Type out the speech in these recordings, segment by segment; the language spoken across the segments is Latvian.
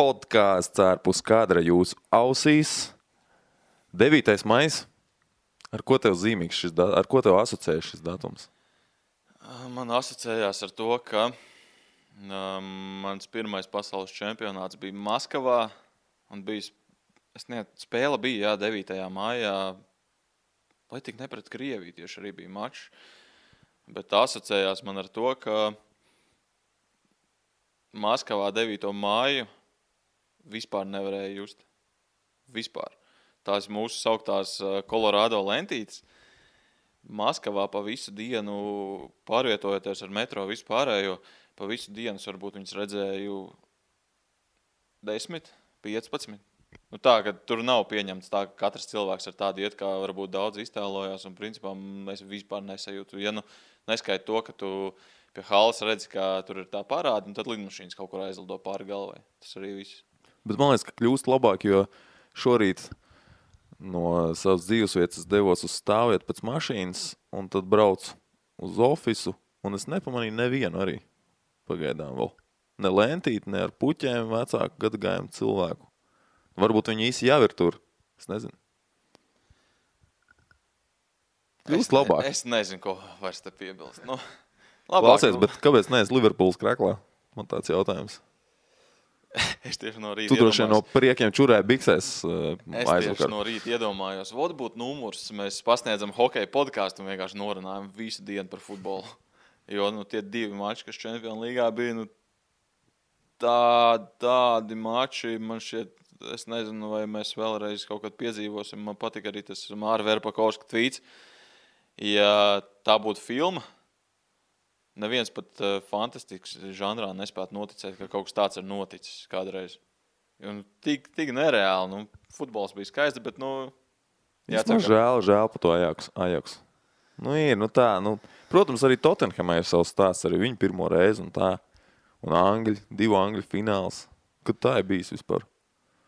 Podkāsts ārpus kadra jūsu ausīs. 9. maijs. Ar ko tev zīmīgs šis datums? Ar ko tev asociējas šis datums? Man asociējās ar to, ka mans pirmais pasaules čempionāts bija Maskavā. Un spēle bija 9. maijā. Lai tik ne pret Krieviju tieši arī bija mačs. Bet asociējās man ar to, ka Maskavā 9. māju vispār nevarēja just. Vispār. Tās mūsu sauktās Colorado lentītes. Maskavā pa visu dienu pārvietojoties ar metro vispārējo, pa visu dienas varbūt viņas redzēju 10, 15. Nu tā, ka tur nav pieņemts tā, ka katrs cilvēks ar tādu iet, kā varbūt daudz iztēlojās, un principā es vispār nesajūtu. Ja neskaita to, ka tu pie halas redzi, ka tur ir tā parāda, un tad lidmašīnas kaut kur aizlido pāri galvai. Tas arī viss. Bet man liekas, ka kļūst labāk, jo šorīt no savas dzīvesvietas devos uz stāvvietu pēc mašīnas, un tad braucu uz ofisu, un es nepamanīju nevienu arī pagaidām vēl. Ne lentīti, ne ar puķēm vecāku gadagājumu cilvēku. Varbūt viņi īsi jau ir tur. Es nezinu. Kļūst labāk. Es nezinu, ko vairs te piebilst. Nu, Klausies, bet kāpēc neesi Liverpools kreklā? Man tāds jautājums. Es tieši no rīta tu droši no priekiem čurēji biksēs Es tieši no rīta iedomājos. Vot būtu numurs, mēs pasniedzam hokeja podkāstu un vienkārši norunājam visu dienu par futbolu. Jo tie 2 mači, kas Čempionu līgā bija, tādi mači, man šķiet, es nezinu, vai mēs vēlreiz kaut kad piedzīvosim. Man patika arī tas Māra Verpakovska tvīts. Ja tā būtu filma, neviens pat fantastikas žanrā nespētu noticēt, ka kaut kas tāds ir noticis kādreiz. Un tik nereāli. Futbols bija skaisti, bet žēl par to Ajax. Ir tā. Protams, arī Tottenhamai ir savs stāsts, arī viņi pirmo reizi un tā. Un Angļi, 2 Angļu fināls. Kad tā ir bijis vispār?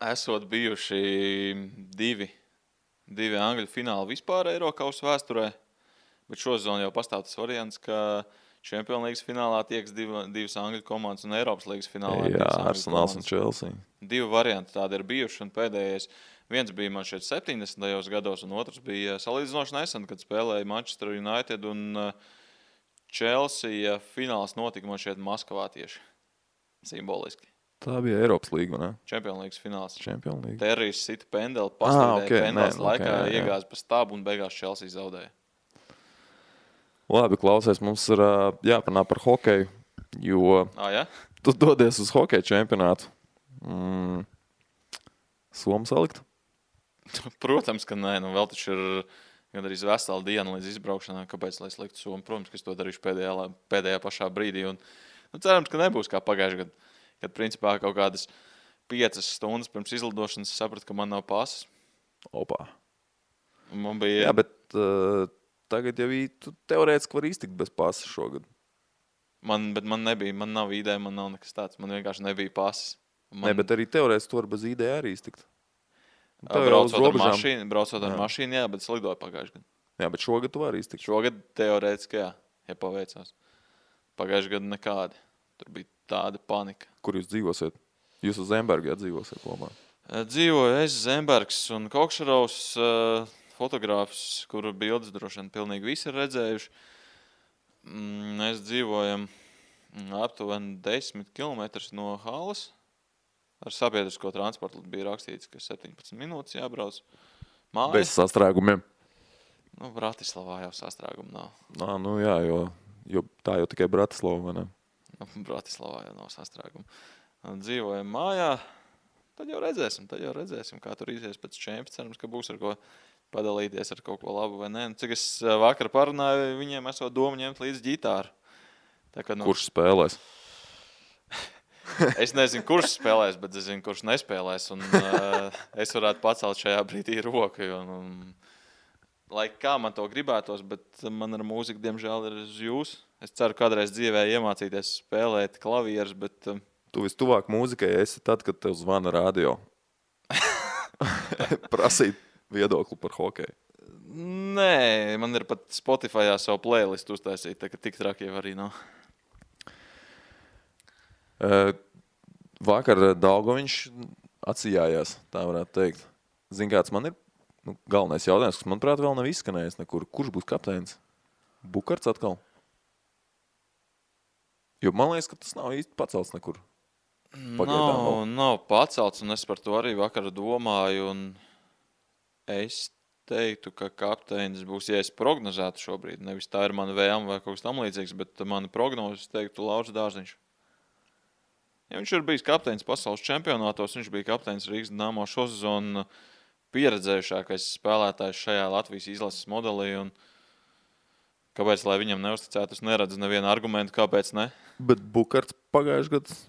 Esot bijuši 2 Angļu fināli vispār Eirokausa vēsturē, bet šozon jau pastāv tas variants, ka Čempionu līgas finālā tieks 2 Angļu komandas un Eiropas līgas finālā. Jā, Arsenals un Chelsea. 2 varianti tādi ir bijuši, un pēdējais viens bija man šeit 70. gados, un otrs bija salīdzinoši nesen, kad spēlēja Manchester United un Chelsea. Fināls notika man šeit Maskavā tieši. Simboliski. Tā bija Eiropas līga, ne? Čempionu līgas fināls. Čempionu līga. Terrijs sita pendeli, paslīdēja pendeles laikā, iegāza pa stabu un beigās Chelsea zaudēja. Labi, klausies, mums ir jāpanā par hokeju, jo ja? Tu dodies uz hokeja čempionātu. Somu salikt? Protams, ka nē. Vēl taču ir gandrīz vesela diena līdz izbraukšanai. Kāpēc, lai sliktu somu? Protams, ka es to darīšu pēdējā pašā brīdī. Un, cerams, ka nebūs kā pagājušajā gadā, kad principā kaut kādas 5 stundas pirms izlidošanas sapratu, ka man nav pasas. Opā. Man bija... Jā, bet... Tagad jau tu teorētiski var iztikt bez pasas šogad. Bet man nav ID, man nav nekas tāds. Man vienkārši nebija pasas. Bet arī teorētiski tu var bez ID arī iztikt. Braucot ar mašīnu, jā, bet es lidoju pagājušajā gadā. Jā, bet šogad tu vari iztikt. Šogad teorētiski, jā, ja paveicās. Pagājušajā gadā nekādi. Tur bija tāda panika. Kur jūs dzīvosiet? Jūs uz Zemberga dzīvosiet kopā? Dzīvoju es, Zembergs un Kokšarovs, fotogrāfs, kuru bildes droši vien pilnīgi visi ir redzējuši. Mēs dzīvojam aptuveni 10 kilometrus no halas. Ar sabiedrisko transportu bija rakstīts, ka 17 minūtes jābrauc. Mājas. Bez sastrēgumiem. Bratislavā jau sastrēgumu nav. Jā, jo tā jau tikai Bratislava, vai ne? Bratislavā jau nav sastrēgumu. Dzīvojam mājā. Tad jau redzēsim, kā tur izies pēc čempions. Cerams, ka būs ar ko padalīties ar kaut ko labu vai nē. Cik es vakar parunāju, viņiem esot domu ņemt līdz ģitāru. Kurš spēlēs? Es nezinu, kurš spēlēs, bet es zinu, kurš nespēlēs. Un, es varētu pacelt šajā brīdī roku. Lai kā man to gribētos, bet man ar mūziku, diemžēl, ir uz jūs. Es ceru, kādreiz dzīvē iemācīties spēlēt klavierus, bet... Tu vistuvāk mūzikai esi tad, kad tev zvana radio. Prasīt viedokli par hokeju. Nē, man ir pat Spotifyā savu playlistu uztaisīt, tā ka tik traki jau arī nav. Vakar Daugoviņš atsijājās, tā varētu teikt. Zini, kāds man ir galvenais jautājums, kas, manuprāt, vēl nav izskanējis nekur. Kurš būs kapteinis? Bukarts atkal? Jo man liekas, ka tas nav īsti pacelts nekur. Nav pacelts, un es par to arī vakar domāju, un es teiktu, ka kapteinis būs, ja es prognozētu šobrīd, nevis tā ir mana vēlme vai kaut kas tam līdzīgs, bet mana prognozes teiktu Lauris Dārziņš. Ja viņš ir bijis kapteinis pasaules čempionātos, viņš bija kapteinis Rīgas Dinamo šo sezonu pieredzējušākais spēlētājs šajā Latvijas izlases modelī, un kāpēc, lai viņam neuzticētu, es neredzu nevienu argumentu, kāpēc ne. Bet Bukarts pagājuši gads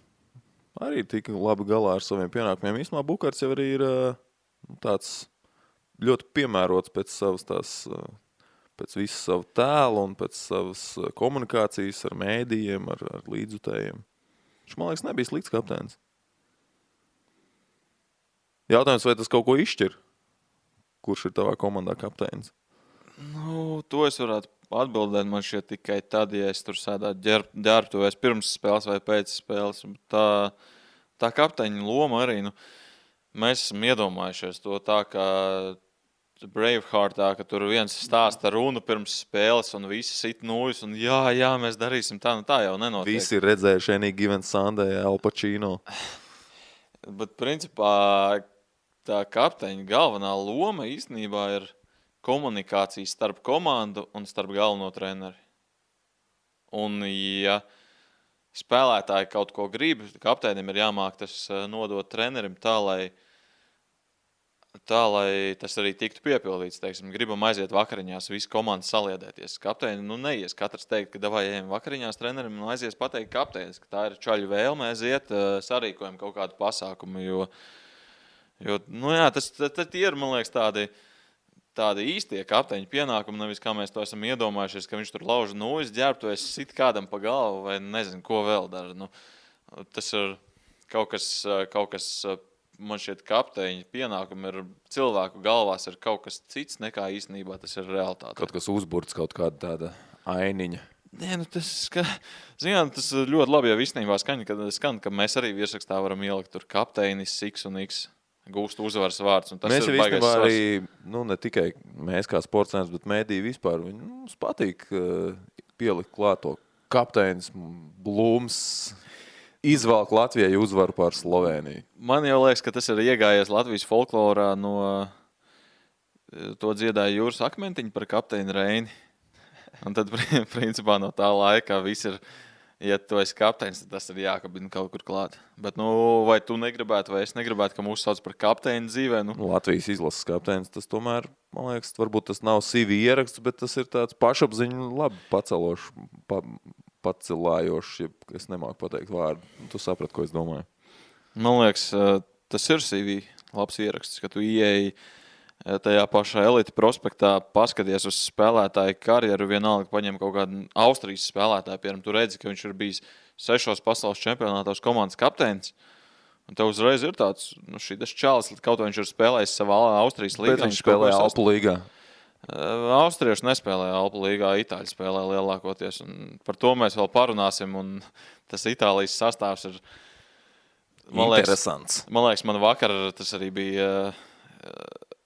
arī tika labi galā ar saviem pienākumiem. Īstumā Bukarts jau arī ir tāds ļoti piemērots pēc visu savu tēlu un pēc savas komunikācijas ar mēdījiem, ar līdzjutējiem. Viņš, man liekas, nebija slikts kapteinis. Jautājums, vai tas kaut ko izšķir? Kurš ir tavā komandā kapteinis? To es varētu atbildēt man šeit tikai tad, ja es tur sēdētu ģērbtuvēs pirms spēles vai pēc spēles. Tā kapteiņa loma arī, mēs esam iedomājušies to tā, kā Braveheartā, ka tur viens stāsta runu pirms spēles un visi sit nūjas un jā, mēs darīsim tā, tā jau nenotiek. Visi ir redzējuši Any Given Sunday, Al Pacino. Bet principā tā kapteiņa galvenā loma īstenībā ir komunikācija starp komandu un starp galveno treneri. Un, ja spēlētāji kaut ko grib, kapteinim ir jāmāk tas nodot trenerim tā, lai tas arī tiktu piepildīts. Teiksim, gribam aiziet vakariņās, visi komandas saliedēties. Kapteini, neies katrs teikt, ka davai ejam vakariņās trenerim un aizies pateikt kapteinis, ka tā ir čaļu vēlme aiziet, sarīkojam kaut kādu pasākumu, jo tas ir, man liekas, tādi īstie kapteiņu pienākumi, nevis kā mēs to esam iedomājušies, ka viņš tur lauž nūjas ģērbtuvēs, sit kādam pa galvu vai nezinu, ko vēl dara. Tas ir kaut kas, man šķiet, kapteiņu pienākumi ir cilvēku galvās ir kaut kas cits nekā īstenībā tas ir realitāte. Kaut kas uzburts, kaut kāda tāda ainiņa. Tas ļoti labi jau īstenībā skan, ka mēs arī virsrakstā varam ielikt tur kapteinis, X un X. Gūst uzvaras vārds. Mēs jau īstenībā arī, ne tikai mēs kā sportsēns, bet mēdī vispār, mums patīk pielikt klāt to kapteinis, Blūms, izvelk Latvijai uzvaru pār Sloveniju. Man jau liekas, ka tas ir iegājies Latvijas folklorā no to dziedāja Jūras Akmentiņa par kapteini Reini. Un tad, principā, no tā laika viss ir, ja tu esi kapteinis, tad tas ir jākabina kaut kur klāt. Bet, vai tu negribētu, vai es negribētu, ka mūs sauc par kapteini dzīvē? Latvijas izlases kapteinis, tas tomēr, man liekas, varbūt tas nav CV ieraksts, bet tas ir tāds pašapziņu labi pacelošs, pacelājošs, ja es nemāku pateikt vārdu. Tu saprati, ko es domāju. Man liekas, tas ir CV labs ieraksts, ka tu ieeji tajā pašā elite prospektā, paskaties uz spēlētāju karjeru, vienalga paņem kaut kādu Austrijas spēlētāju, piemēram, tu redzi, ka viņš ir bijis 6 pasaules čempionātos komandas kapteinis, un tev uzreiz ir tāds, šitas čalis, kaut vai viņš ir spēlējis savā Austrijas līgā. Bet viņš spēlēja Alpu līgā. Austrieši nespēlēja Alpu līgā, Itāļi spēlēja lielākoties, un par to mēs vēl parunāsim, un tas Itālijas sastāvs ir, interesants. Man liekas, man vakar tas arī bija...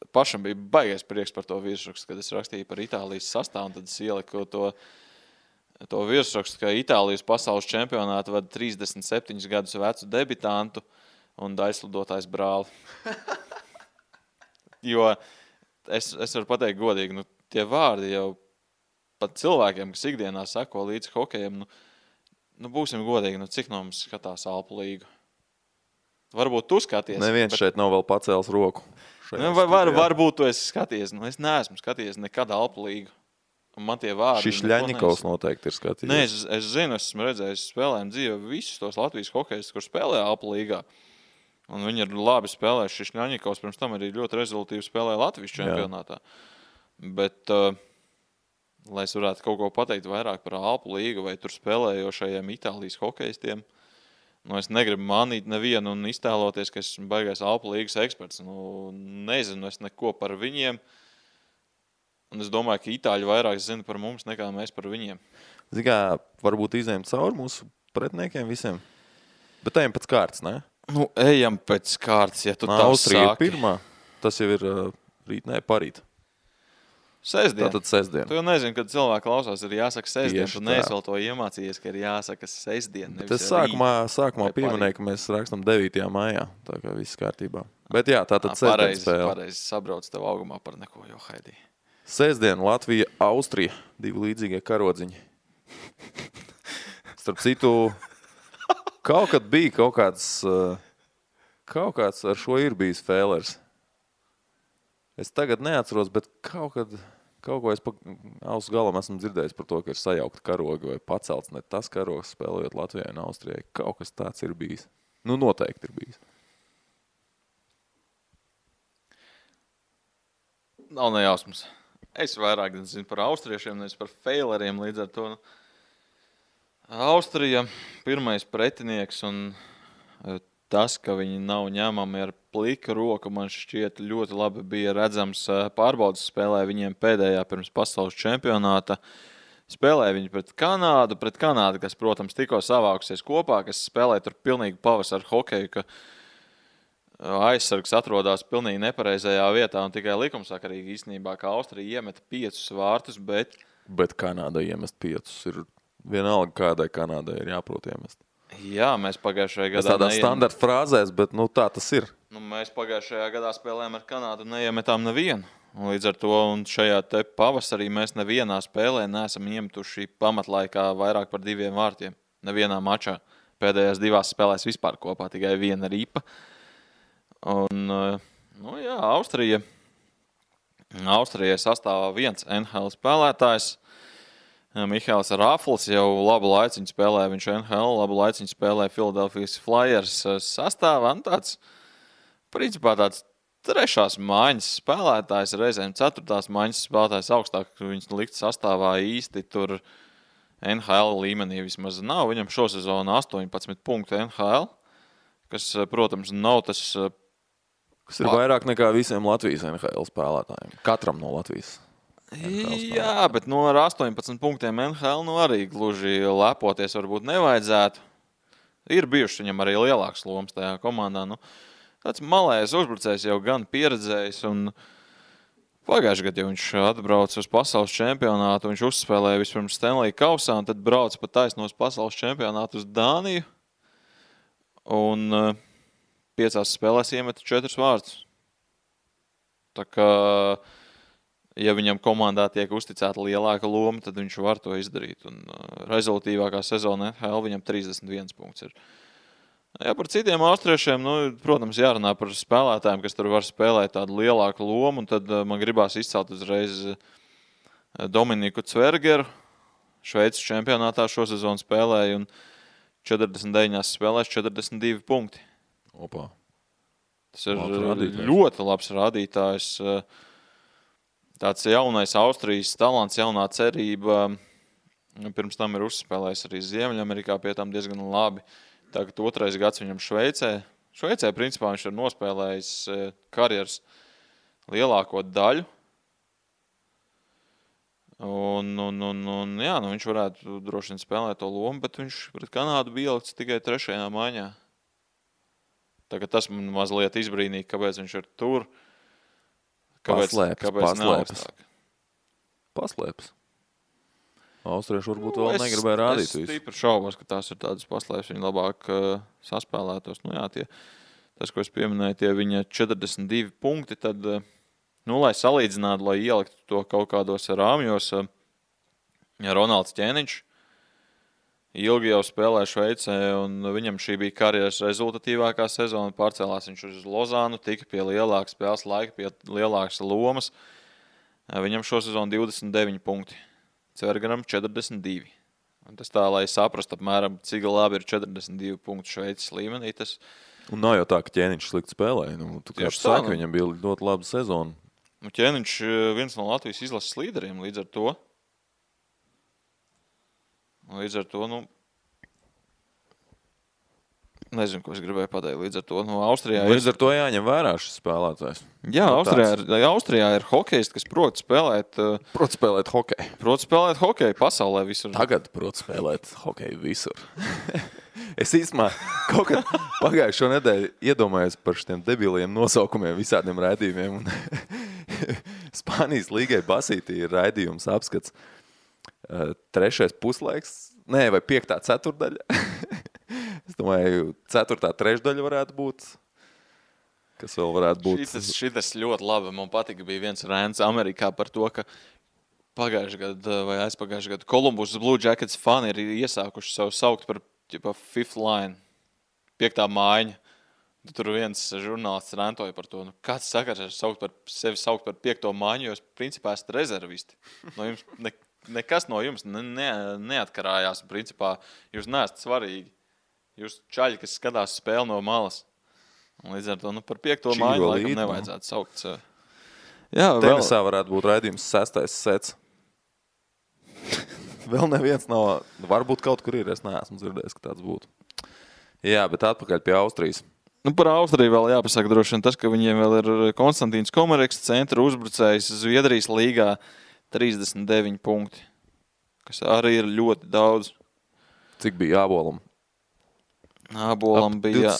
Pašam bija baigais prieks par to virsrakstu, kad es rakstīju par Itālijas sastāvu, un tad es ieliku to virsrakstu, ka Itālijas pasaules čempionātu vada 37 gadus vecu debitantu un aizslidotājs brāli. Jo es varu pateikt godīgi, tie vārdi jau pat cilvēkiem, kas ikdienā seko līdz hokejam, būsim godīgi, cik no mums skatās Alpu līgu. Varbūt tu skaties. Neviens šeit nav vēl pacēlis roku. Varbūt tu esi skaties. Es neesmu skaties nekad Alpu līgu. Un man tie vārdi... Šis Ļaņikovs noteikti ir skatījies. Nē, es zinu, esmu redzējis spēlējumu dzīvē visus tos Latvijas hokejus, kur spēlē Alpu līgā. Un viņi ir labi spēlējuši. Šis Ļaņikovs pirms tam arī ļoti rezultīvi spēlēja Latvijas čempionātā. Bet, lai es varētu kaut ko pateikt vairāk par Alpu līgu vai tur spēlējošajiem Itālijas hokejistiem, es negribu manīt nevienu un iztēloties, ka esmu baigais Alpu līgas eksperts. Nezinu es neko par viņiem. Un es domāju, ka Itāļi vairāk zina par mums nekā mēs par viņiem. Zini kā, varbūt izējam cauri mūsu pretiniekiem visiem. Bet tajiem pēc kārtas, ne? Nu, ejam pēc kārtas, ja tu tā Austrija sāki. ir pirmā. Tas jau ir rīt, parīt. Sestdien. Tātad sestdien. Tu jau nezini, kad cilvēki klausās, ir jāsaka sestdien. Tieši Tu tā. neesi vēl to iemācījies, ka ir jāsaka sestdien. Bet es sākumā pieminēju, ka mēs rakstam 9. maijā. Tā kā viss kārtībā. Bet jā, tātad sestdien spēle. Pareizi sabrauc tev augumā par neko, jo Haidī. Sestdien Latvija, Austrija. 2 līdzīgie karodziņi. Starp citu, kaut kad bija kaut kāds ar šo ir bijis fēlers. Es tagad neatceros, bet kaut ko es pa ausu galam esmu dzirdējis par to, ka ir sajaukt karogi vai pacelts ne tas karogs spēlējot Latvijai un Austrijai. Kaut kas tāds ir bijis. Nu, noteikti ir bijis. Nav nejausmas. Es vairāk zinu par austriešiem, nevis par feileriem līdz ar to. Austrija pirmais pretinieks un tas, ka viņi nav ņemami ar pliku roku, man šķiet ļoti labi bija redzams pārbaudas spēlē viņiem pēdējā pirms pasaules čempionāta. Spēlēja viņi pret Kanādu, kas, protams, tikko savākusies kopā, kas spēlēja tur pilnīgi pavasaru hokeju, ka aizsargs atrodas pilnīgi nepareizajā vietā un tikai likumsakarīgi īstenībā, ka Austrija iemeta 5 vārtus, bet Kanādai iemest 5 ir vienalga, kādai Kanādai ir jāprot iemest. Jā, mēs pagājušajā gadā tādā standarta frāzēs, bet tā tas ir. Mēs pagājušajā gadā spēlējām ar Kanādu un neiemetām nevienu. Un līdz ar to un šajā te pavasarī mēs nevienā spēlē neesam iemetuši pamatlaikā vairāk par 2 vārtiem. Nevienā mačā. Pēdējās 2 spēlēs vispār kopā tikai 1 ripa. Un, jā, Austrijai sastāvā 1 NHL spēlētājs. Mihails Rafls jau labu laiciņu spēlē, viņš NHL labu laiciņu spēlē Philadelphia Flyers sastāvā. Tāds, principā tāds 3. maiņas spēlētājs, reizēm 4. maiņas spēlētājs augstāk, viņas likt sastāvā īsti tur NHL līmenī vismaz nav. Viņam šosezonu 18 punktu NHL, kas, protams, nav tas... Kas ir vairāk nekā visiem Latvijas NHL spēlētājiem. Katram no Latvijas. Jā, bet ar 18 punktiem NHL arī gluži lepoties varbūt nevajadzētu. Ir bijuši viņam arī lielāks lomas tajā komandā. Tāds malējs uzbrucējs jau gan pieredzējis. Un pagājušajā gadā viņš atbrauca uz pasaules čempionātu. Viņš uzspēlēja vispirms Stanley kausā un tad brauca pa taisnos pasaules čempionātu uz Dāniju. Un 5 spēlēs iemeta 4 vārtus. Tā kā... Ja viņam komandā tiek uzticēta lielāka loma, tad viņš var to izdarīt. Un rezultīvākā sezona NHL viņam 31 punkts ir. Ja par citiem austriešiem, protams, jārunā par spēlētājiem, kas tur var spēlēt tādu lielāku lomu. Un tad man gribās izcelt uzreiz Dominiku Cvergeru. Šveices čempionātā šo sezonu spēlēja un 49 spēlēs 42 punkti. Opa. Tas ir ļoti labs rādītājs. Tāds jaunais Austrijas talants, jaunā cerība. Pirms tam ir uzspēlējis arī Ziemeļamerikā, pie tam diezgan labi. Tagad 2. gads viņam Šveicē. Šveicē, principā, viņš ir nospēlējis karjeras lielāko daļu. Un jā, viņš varētu droši vien spēlēt to lomu, bet viņš pret Kanādu bija ielikts tikai 3. maiņā. Tagad tas man mazliet izbrīnīja, kāpēc viņš ir tur. Paslēpes. Austrieši varbūt vēl negribēja rādīt visu. Es stipri šaubos, ka tās ir tādas paslēpes, viņi labāk saspēlētos. Tas, ko es pieminēju, tie viņa 42 punkti, tad, lai salīdzinātu, lai ieliktu to kaut kādos rāmjos, Ronalds Ķēniņš ilgi jau spēlē Šveicē, un viņam šī bija karjeras rezultatīvākā sezona. Pārcēlās viņš uz Lozānu, tika pie lielākas spēles laika, pie lielākas lomas. Viņam šo sezonu 29 punkti, Cvergeram 42. Un tas tā, lai saprastu apmēram, cik labi ir 42 punkti Šveices līmenī. Un nav jau tā, ka Ķēniņš slikti spēlēja. Viņam bija ļoti laba sezona. Ķēniņš viens no Latvijas izlases līderiem līdz ar to. Nezinu, ko es gribēju pateikt. Līdz ar to Austrijā Līdz ar to jāņem vērā šis spēlētājs. Jā, Austrijā ir hokejisti, kas prot spēlēt hokeju. Prot spēlēt hokeju pasaulē visur. Tagad prot spēlēt hokeju visur. Es īstenībā kaut kad pagājušo nedēļu iedomājos par šiem debiliem nosaukumiem visādiem raidījumiem. Spānijas līgai basītī ir raidījums apskats 3. puslaiks, vai 5. ceturdaļa. Es domāju, 4. trešdaļa varētu būt. Kas vēl varētu būt? Šitas ļoti labi. Man patika, bija viens rēns Amerikā par to, ka pagājušajā gadā vai aizpagājušajā gadā Columbus Blue Jackets fani ir iesākuši savu saukt par fifth line, 5. mājiņa. Tur viens žurnālists rentoja par to, kāds sakars ar sevi saukt par 5. mājiņu, jo es principā esat rezervisti. No jums nekas no jums neatkarājās. Principā jūs neesat svarīgi. Jūs čaļi, kas skatās spēli no malas. Un līdz ar to par 5. mājiņu laikam nevajadzētu saukt. Jā, Tenisā varētu būt raidījums 6. sets. Vēl neviens nav. Varbūt kaut kur ir, es neesmu dzirdējis, ka tāds būtu. Jā, bet atpakaļ pie Austrijas. Par Austriju vēl jāpasaka droši vien tas, ka viņiem vēl ir Konstantīns Komareks, centra uzbrucējs Zviedrijas līgā 39 punkti, kas arī ir ļoti daudz. Cik bija Ābolam? Ābolam bija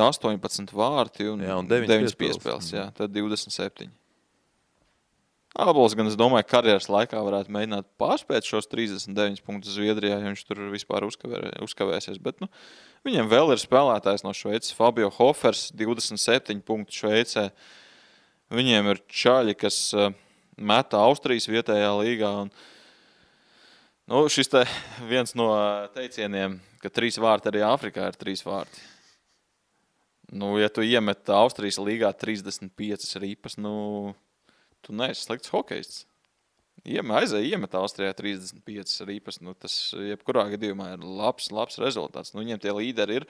18 vārti un 9 piespēles. Jā, tad 27. Ābols gan, es domāju, karjeras laikā varētu mēģināt pārspēt šos 39 punktus Zviedrijā, ja viņš tur vispār uzkavēsies. Bet viņiem vēl ir spēlētājs no Šveices, Fabio Hofers, 27 punktu Šveicē. Viņiem ir čaļi, kas meta Austrijas vietējā līgā. Un, šis te viens no teicieniem, ka 3 vārti arī Āfrikā ir 3 vārti. Ja tu iemet Austrijas līgā 35 ripas, tu neesi slikts hokejists. Iemet Austrijā 35 ripas, tas jebkurā gadījumā ir labs rezultāts. Viņiem tie līderi ir,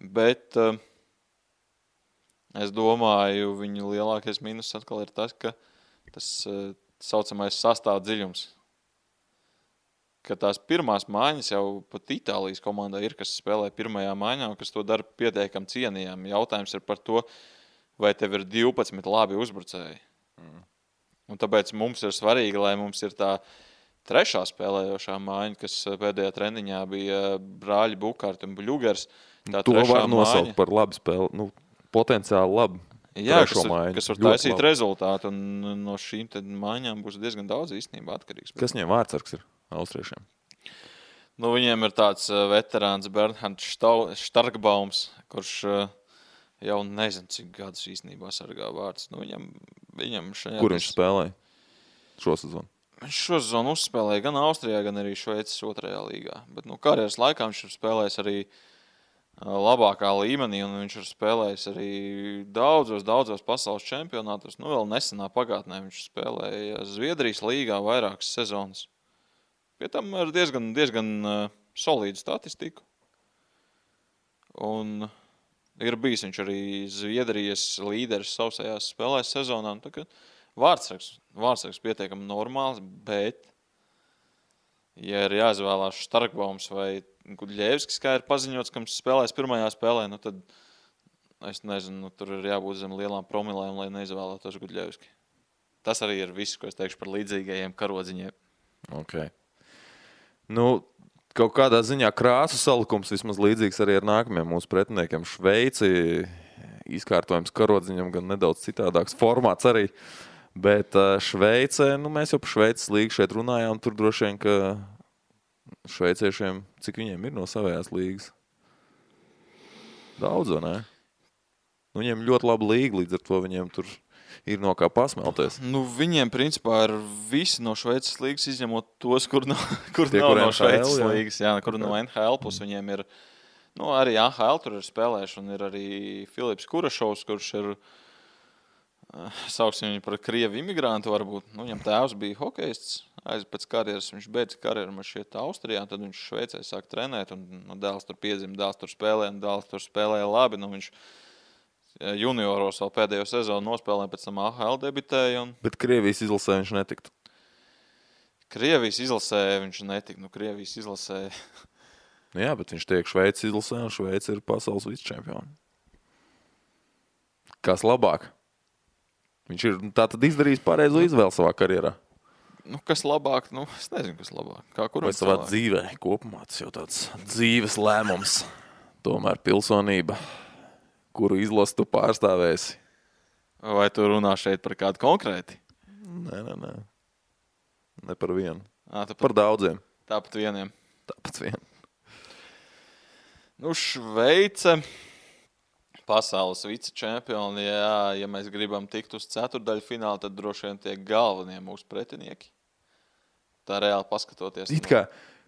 bet es domāju, viņu lielākais mīnus atkal ir tas, ka tas saucamais sastāv dziļums. Ka tās pirmās mājiņas jau pat Itālijas komandā ir, kas spēlē pirmajā mājiņā un kas to dara pietiekam cienījami. Jautājums ir par to, vai tev ir 12 labi uzbrucēji. Un tāpēc mums ir svarīgi, lai mums ir tā 3. spēlējošā mājiņa, kas pēdējā treniņā bija brāļi Bukārti un Bļugers. To var nosaukt par labu spēli, potenciāli labu. Jā, kas var taisīt labi rezultātu, un no šīm mājiņām būs diezgan daudz īstenībā atkarīgs. Kas viņiem vārdsargs ir austriešiem? Viņiem ir tāds veterāns Bernhards Starkbaums, kurš jau nezinu, cik gadus īstenībā sargā vārds. Viņam Kur viņš spēlēja šo sezonu? Viņš šo sezonu uzspēlēja gan Austrijā, gan arī Šveices 2. līgā. Bet karjeras laikā viņš ir spēlējis arī labākā līmenī, un viņš ir spēlējis arī daudzos pasaules čempionātos. Vēl nesenā pagātnē viņš spēlēja Zviedrijas līgā vairākas sezonas. Pie tam ar diezgan solīdu statistiku. Un ir bijis viņš arī Zviedrijas līderis sausajās spēlēs sezonā. Vārdsargs pietiekami normāls, bet, ja ir jāizvēlās Starkbaums vai Gudļevskis, kā ir paziņots, kam spēlēs pirmajā spēlē, tad es nezinu, tur ir jābūt zem lielām promilēm, lai neizvēlētos Gudļevski. Tas arī ir viss, ko es teikšu par līdzīgajiem karodziņiem. Okay. Kaut kādā ziņā krāsu salikums vismaz līdzīgs arī ar nākamajiem mūsu pretiniekiem. Šveici, izkārtojums karodziņam gan nedaudz citādāks formāts arī, bet Šveice, mēs jau par Šveices līgu šeit runājām, tur droši vien, ka šveiciešiem, cik viņiem ir no savējās līgas? Daudz, vai ne? Viņiem ļoti laba līga, līdz ar to viņiem tur ir no kā pasmelties. Viņiem, principā, ir visi no Šveices līgas, izņemot tos, kur nav no Šveices līgas, kur no NHL, plus viņiem ir, arī AHL tur ir spēlējuši, un ir arī Filips Kurašovs, kurš ir, sauksim viņu par krievu imigrantu varbūt. Viņam tēvs bija hokejists, pēc karjeras viņš beidza karjeru šeit Austrijā, tad viņš Šveicē sāk trenēt, un dēls tur piedzima, dēls tur spēlēja labi, viņš junioros vēl pēdējo sezonu nospēlēja, pēc tam AHL debitēja. Bet Krievijas izlasē viņš netiktu? Krievijas izlasē viņš netiktu, Krievijas izlasē. Jā, bet viņš tiek Šveices izlasē, un Šveice ir pasaules vicečempioni. Kas labāk? Viņš ir tātad izdarījis pareizo izvēli savā karjerā. kas labāk? Es nezinu, kas labāk. Kā kuram Vai savā dzīvē kopumā tas jau tāds dzīves lēmums. Tomēr pilsonība, kuru izlasu tu pārstāvēsi. Vai tu runā šeit par kādu konkrēti? Nē. Ne par vienu. Tāpat, Par daudziem. tāpat vieniem. Tāpat vien. Šveice, pasaules vicečempioni. Jā, ja mēs gribam tikt uz ceturdaļu finālu, tad droši vien tie galvenie mūsu pretinieki. Tā reāli paskatoties. It kā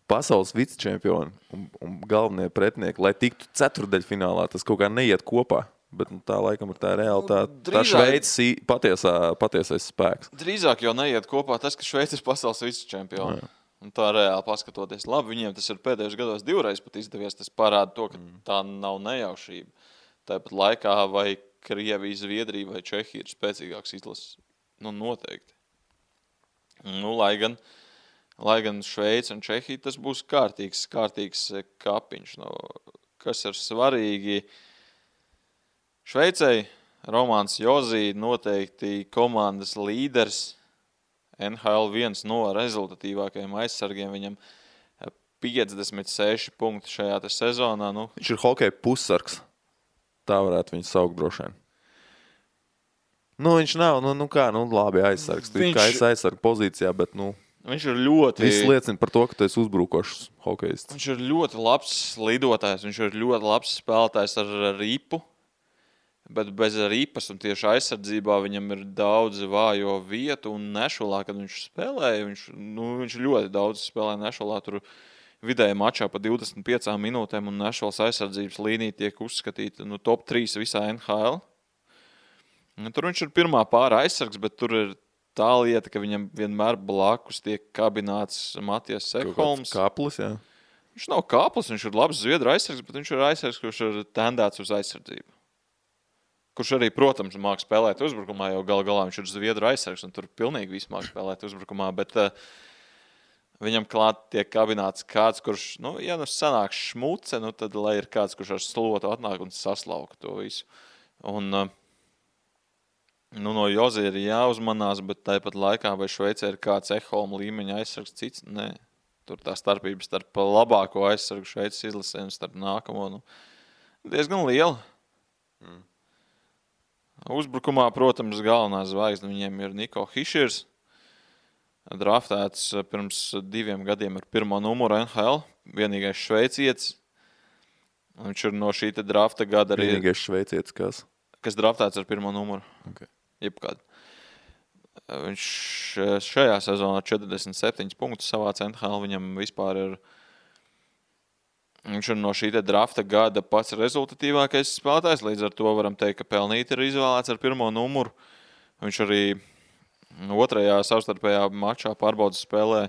pasaules vicečempioni un galvenie pretinieki, lai tiktu ceturdaļfinālā, tas kaut kā neiet kopā. Bet tā laikam ir tā reāli tā Šveices patiesais spēks. Drīzāk jau neiet kopā tas, ka Šveice ir pasaules vicečempioni. Un tā reāli paskatoties. Labi, viņiem tas ir pēdējos gados 2 reizes pat izdevies. Tas parāda to, ka tā nav nejaušība. Tāpat laikā vai Krievija, Zviedrija vai Čehija ir spēcīgāks izlases. Noteikti. Lai gan Šveice un Čehija tas būs kārtīgs kapiņš. Kas ir svarīgi? Šveicei Romāns Jozī noteikti komandas līderis. NHL viens no rezultatīvākajiem aizsargiem. Viņam 56 punkti šajā sezonā. Viņš ir hokeja pussargs. Tā varētu viņu saukt droši vien. Viņš nav, labi aizsargs. Tu kā esi aizsarga pozīcijā, bet, viņš ir ļoti... Viss liecina par to, ka tu esi uzbrukošs hokejists. Viņš ir ļoti labs lidotājs. Viņš ir ļoti labs spēlētājs ar ripu. Bet bez ripas un tieši aizsardzībā viņam ir daudz vājo vietu un Nešulā, kad viņš spēlēja, viņš ļoti daudz spēlēja Nešulā, tur vidēji mačā pa 25 minūtēm un Nešulas aizsardzības līnija tiek uzskatīta top 3 visā NHL. Tur viņš ir pirmā pāra aizsargs, bet tur ir tā lieta, ka viņam vienmēr blakus tiek kabināts Matijas Sekholms. Kāplis, jā. Viņš nav kāplis, viņš ir labs zviedru aizsargs, bet viņš ir aizsargs, kurš ir tendēts uz aizsardzību. Kurš arī, protams, māk spēlēt uzbrukumā, jo galā viņš ir zviedru aizsargs, un tur pilnīgi viss māk spēlēt uzbrukumā, bet viņam klāt tiek kabināts kāds, kurš, ja sanāk šmuce, tad lai ir kāds, kurš ar slotu atnāk un saslauka to visu. Un, no Jozī ir jāuzmanās, bet tāpat laikā vai Šveicē ir kāds Ekholma līmeņa aizsargs cits? Nē. Tur tā starpība starp labāko aizsargu Šveices izlasē un starp nākamo, diezgan liela. Uzbrukumā, protams, galvenā zvaigzne viņiem ir Niko Hiširs. Draftēts pirms 2 gadiem ar 1. numuru NHL. Vienīgais šveicietis. Viņš ir no šī drafta gada arī... Vienīgais šveicietis kas? Kas draftēts ar 1. numuru. Okay. Jebkād. Viņš šajā sezonā 47 punktus savāc NHL. Viņam vispār ir... Viņš ir no šī drafta gada pats rezultatīvākais spēlētājs. Līdz ar to varam teikt, ka pelnīti ir izvēlēts ar 1. numuru. Viņš arī 2. savstarpējā mačā pārbaudas spēlē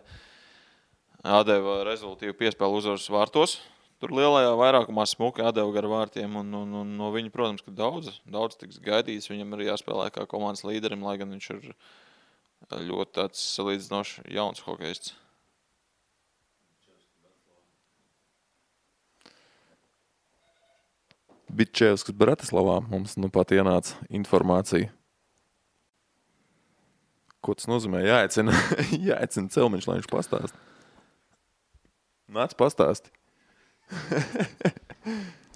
atdeva rezultatīvu piespēlu uzvaras vārtos. Tur lielajā vairākumā smuki atdeva gar vārtiem. Un no viņa, protams, ka daudz tiks gaidīts. Viņam arī jāspēlē kā komandas līderim, lai gan viņš ir ļoti tāds salīdzinoši jauns hokejists. Bitčevskis Bratislavā mums pat ienāca informācija. Ko tas nozīmē? Jāicina Celmiņš, lai viņš pastāst. Nāc pastāsti.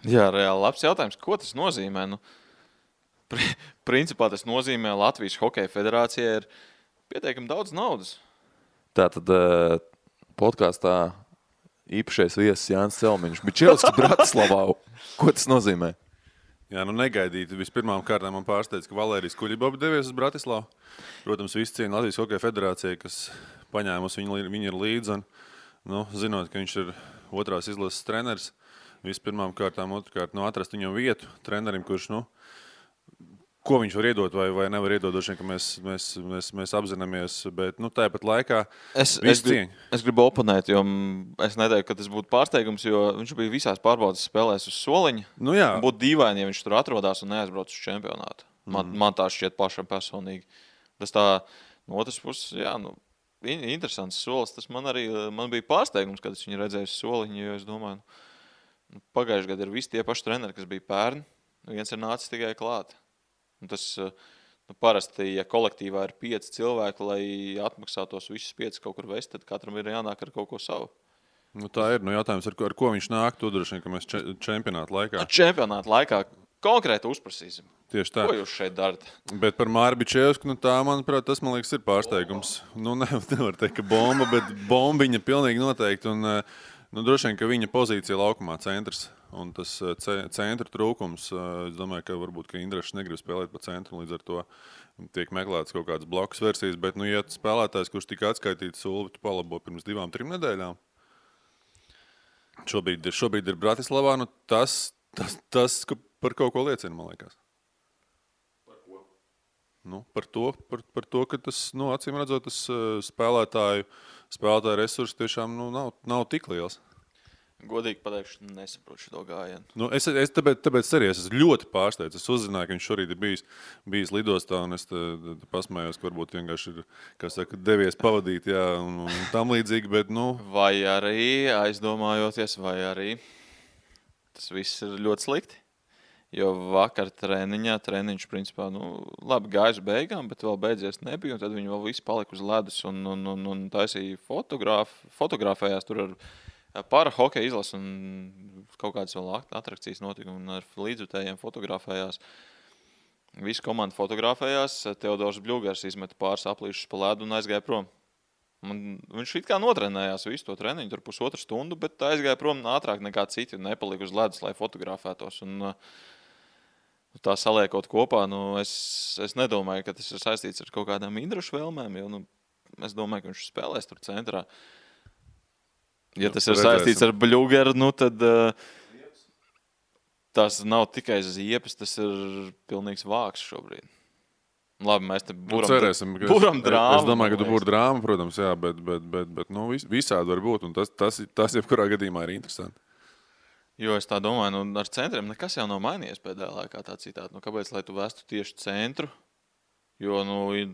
Jā, reāli labs jautājums. Ko tas nozīmē? Principā tas nozīmē Latvijas Hokeja federācijai ir pietiekami daudz naudas. Tātad podkāstā īpašais viesis Jānis Celmiņš. Bitčevskis Bratislavā. Ko tas nozīmē? Jā, negaidīti. Vispirmām kārtām man pārsteidz, ka Valērijas Kuļibobs devies uz Bratislavu. Protams, visi ciena Latvijas Hokeja federācija, kas paņēmusi viņu ir līdzi. Un, zinot, ka viņš ir 2. izlases treneris, vispirmām kārtām, otrkārt, atrast viņam vietu trenerim, kurš, ko viņš var iedot vai nevar iedot, došiem, ka mēs apzināmies, bet tāpat laikā es gribu oponēt, jo es neteiktu, ka tas būtu pārsteigums, jo viņš bija visās pārbaudas spēlēs uz soliņa. Būtu dīvaini, ja viņš tur atrodās un neaizbrauc uz čempionātu. Man tā šķiet pašam personīgi. Tas tā, no otras puses, interesants solis. Tas man bija pārsteigums, kad es viņu redzēju uz soliņa, jo es domāju, pagājušajā gadā ir visi tie paši treneri, kas bija pērni. Viens ir nācis tikai klāt. Un tas Parasti, ja kolektīvā ir 5 cilvēki, lai atmaksātos visus 5 kaut kur vest, tad katram ir jānāk ar kaut ko savu. Tā ir. Jautājums, ar ko viņš nāk, to droši vien, ka mēs čempionāta laikā. Čempionāta laikā konkrēti uzprasīsim. Tieši tā. Ko jūs šeit darat? Bet par Māri Bičevsku, tā, manuprāt, tas, man liekas, ir pārsteigums. Nevar teikt, ka bomba, bet bombiņa pilnīgi noteikti. Un, droši vien, ka viņa pozīcija laukumā centrs. Un tas centra trūkums, es domāju, ka varbūt ka Indrašs negrib spēlēt pa centru, līdz ar to tiek meklētas kaut kādas blokus versijas. Bet, ja spēlētājs, kurš tika atskaitīts Ulvi, tu palabo pirms 2-3 nedēļām, šobrīd ir Bratislavā, tas par kaut ko liecina, man liekas. Par ko? Par to, ka tas, acīm redzot, tas spēlētāju resursi tiešām nav tik liels. Godīgi pateikšu, nesaprotu šo gājienu. Tāpēc arī es esmu ļoti pārsteigts. Es uzzināju, ka viņš šorīt ir bijis lidostā, un es pasmējos, ka varbūt vienkārši ir, kā saka, devies pavadīt, jā, un tam līdzīgi, bet, Vai arī, aizdomājoties, vai arī tas viss ir ļoti slikti. Jo vakar treniņš, principā, labi gājuši beigām, bet vēl beidzies nebija, un tad viņi vēl visi palika uz ledus un taisīja fotografējās tur ar para hokeja izlas un kaut kādas vēl atrakcijas notika un ar līdzjutējiem fotografējās. Visa komanda fotografējās, Teodors Bļūgars izmeta pāris aplīšus pa ledu un aizgāja prom. Viņš it kā notrenējās visu to treniņu, tur 1,5 stundu, bet aizgāja prom ātrāk nekā citi un nepalika uz ledus, lai fotografētos. Un tā saliekot kopā, es nedomāju, ka tas ir saistīts ar kaut kādām Indrašu vēlmēm, jo es domāju, ka viņš spēlēs tur centrā. Ja tas ir saistīts ar Bļūgeru, tad tas nav tikai ziepes, tas ir pilnīgs vāks šobrīd. Labi, mēs te buram drāmu. Es domāju, ka tu būri drāma, protams, jā, bet visādi var būt, un tas jebkurā gadījumā ir interesanti. Jo es tā domāju, ar centriem nekas jau nav mainījies pēdējā laikā tā citādi. Kāpēc, lai tu vestu tieši centru? Jo,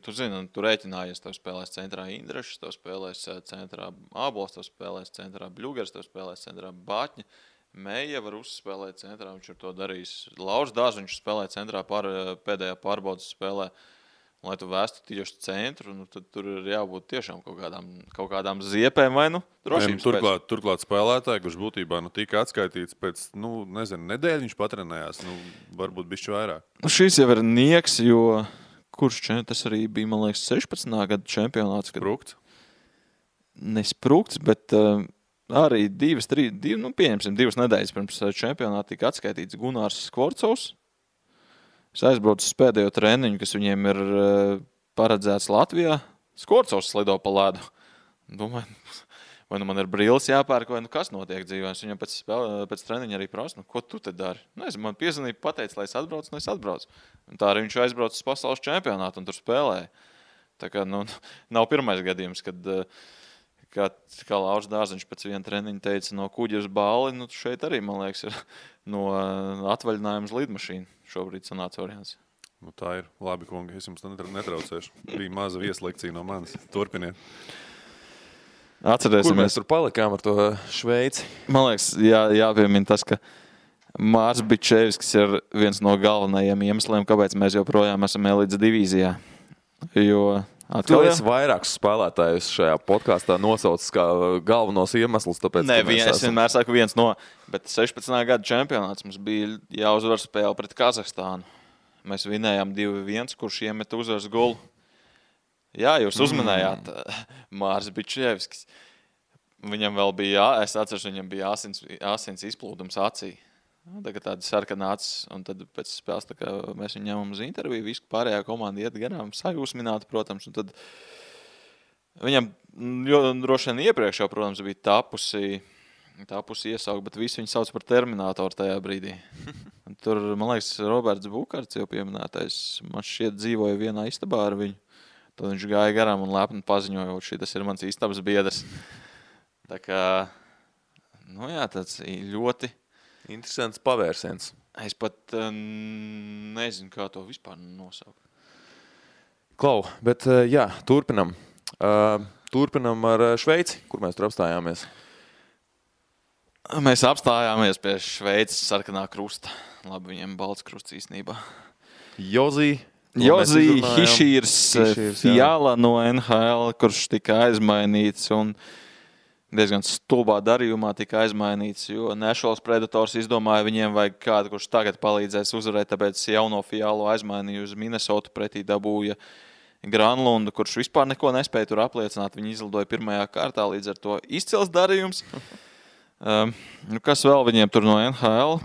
tu zini, tu rēķinājies, tev spēlēs centrā Indrašs, tev spēlēs centrā Ābols, tev spēlēs centrā Bļūgars, tev spēlēs centrā Bāķņa. Meija var uzspēlēt centrā, viņš ir to darījis. Lauris Dārziņš spēlē centrā pēdējā pārbaudas spēlē. Lai tu vēstu tieši centru, tad tur ir jābūt tiešām kaut kādām ziepēm vai drošības pēc. Turklāt spēlētāji, kurš būtībā tika atskaitīts pēc, nedēļu viņš patrenējās, varbūt bišķi vairāk. Šis jau ir nieks, jo tas arī bija, man liekas, 16. gada čempionāts. Sprukts? Nesprukts, bet arī pieņemsim 2 nedēļas pirms čempionāta tika atskaitīts Gunārs Skvorcovs. Es aizbraucu uz pēdējo treniņu, kas viņiem ir paredzēts Latvijā. Skvorcovs slido pa ledu. Domāju, vai man ir brilles jāpērk, vai kas notiek dzīvē. Es viņam pēc treniņa arī prasu, ko tu te dari? Man piezvanīja, pateica, lai es atbraucu, un es atbraucu. Un tā arī viņš aizbrauca uz pasaules čempionātu un tur spēlēja. Tā kā, nav pirmais gadījums, kad, kā Lauris Dārziņš pēc viena treniņa teica, no kuģa uz Bāli, šeit arī, man liekas, ir no atvaļinājuma uz lidmašīnu. Šobrīd sanāca variants. Tā ir. Labi, kungi, es jums netraucēšu. Bija maza vieslekcija no manis. Turpiniet. Atcerēsimies. Kur mēs tur palikām ar to Šveici? Man liekas, jāpiemina tas, ka Mārs Bičevskis ir viens no galvenajiem iemesliem, kāpēc mēs joprojām esam elites divīzijā. Jo tu esi vairākus spēlētājus šajā podkāstā nosaucis kā galvenos iemeslus, tāpēc, es vienmēr saku viens no, bet 16. gada čempionāts mums bija jāuzvar spēle pret Kazahstānu. Mēs vinējām 2-1, kurš iemeta uzvaras golu. Jā, jūs uzmanējāt Mārs Bičevskis. Viņam vēl bija, es atceros, viņam bija asins izplūdums acī. Tagad tāda sarkana acis, un tad pēc spēles tā kā mēs viņu ņemam uz interviju, visu pārējā komanda iet garām, sajūsmināta, protams, un tad viņam droši vien iepriekš jau, protams, bija tapusi iesaukt, bet visi viņu sauc par Terminatoru tajā brīdī. Un tur, man liekas, Roberts Bukarts jau pieminētais, man šķiet dzīvoja vienā istabā ar viņu, tad viņš gāja garām un lepni paziņoja, šitas ir mans istabas biedrs. Tā kā, tāds ļoti interesants pavērsiens. Es pat nezinu, kā to vispār nosaukt. Klau, bet turpinam. Turpinam ar Šveici, kur mēs tur apstājāmies. Mēs apstājāmies pie Šveices sarkanā krusta. Labi, viņiem balts krusts īstenībā. Jozī Jozi Hišīrs Hišīrs, Fiala no NHL, kurš tika aizmainīts un diezgan stulbā darījumā tika aizmainīts, jo Nashville Predators izdomāja, viņiem vajag kādu, kurš tagad palīdzēs uzvarēt, tāpēc jauno Fialu aizmainīja uz Minnesota, pretī dabūja Granlundu, kurš vispār neko nespēja tur apliecināt. Viņi izlidoja pirmajā kārtā, līdz ar to izcils darījums. Kas vēl viņiem tur no NHL?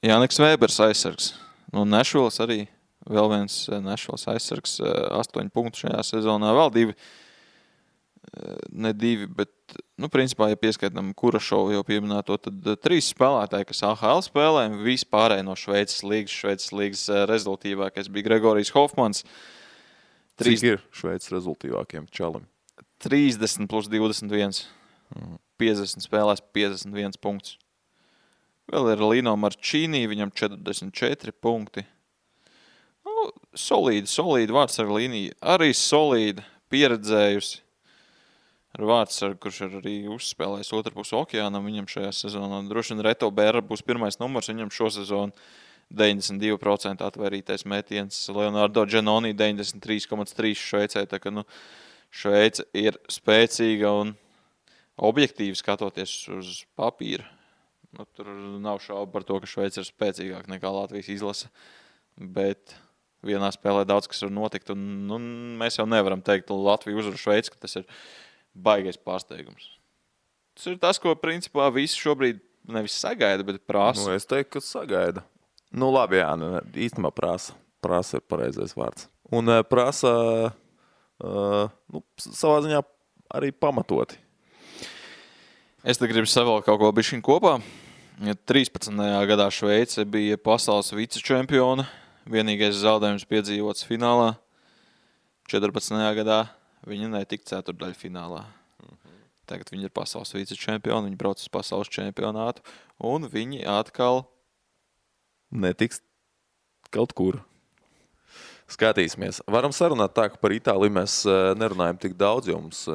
Jāniks Vēbers aizsargs. No Nashvilles arī vēl viens Nashvilles aizsargs, 8 punktu šajā sezonā, vēl 2, ne 2, bet, principā, ja pieskaitam Kurašovu jau pieminēto, tad 3 spēlētāji, kas AHL spēlē, vispārēji no Šveices līgas rezultīvākais bija Gregorijs Hofmans. Cik ir Šveices rezultīvākiem čalim? 30 plus 21. 50 spēlēs, 51 punktus. Vēl ir Lino Marčīnī, viņam 44 punkti. Solīdi vārdsarga līnija. Arī solīdi pieredzējusi ar vārdsargu, kurš ir arī uzspēlējis otrpus okeānam. Viņam šajā sezonā droši vien Reto Bēra būs pirmais numurs. Viņam šo sezonu 92% atvērītais metiens. Leonardo Giannoni 93,3 Šveicē. Tā ka, Šveice ir spēcīga un objektīvi skatoties uz papīra. Tur nav šaubu par to, ka Šveice ir spēcīgāk nekā Latvijas izlase, bet vienā spēlē daudz kas var notikt, un mēs jau nevaram teikt Latviju uzvaru Šveici, ka tas ir baigais pārsteigums. Tas ir tas, ko principā visi šobrīd nevis sagaida, bet prasa. Es teiktu, ka sagaida. Labi, jā, īstenībā prasa. Prasa ir pareizais vārds. Un prasa savā ziņā arī pamatoti. Es te gribu savēl kaut ko bišķiņ kopā. 13. gadā Šveice bija pasaules vicečempiona. Vienīgais zaudējums piedzīvots finālā. 14. gadā viņi netika ceturtdaļa finālā. Tagad viņi ir pasaules vicečempioni, viņi brauc uz pasaules čempionātu, un viņi atkal netiks kaut kur. Skatīsimies. Varam sarunāt tā, ka par Itāliju mēs nerunājam tik daudz, jo mums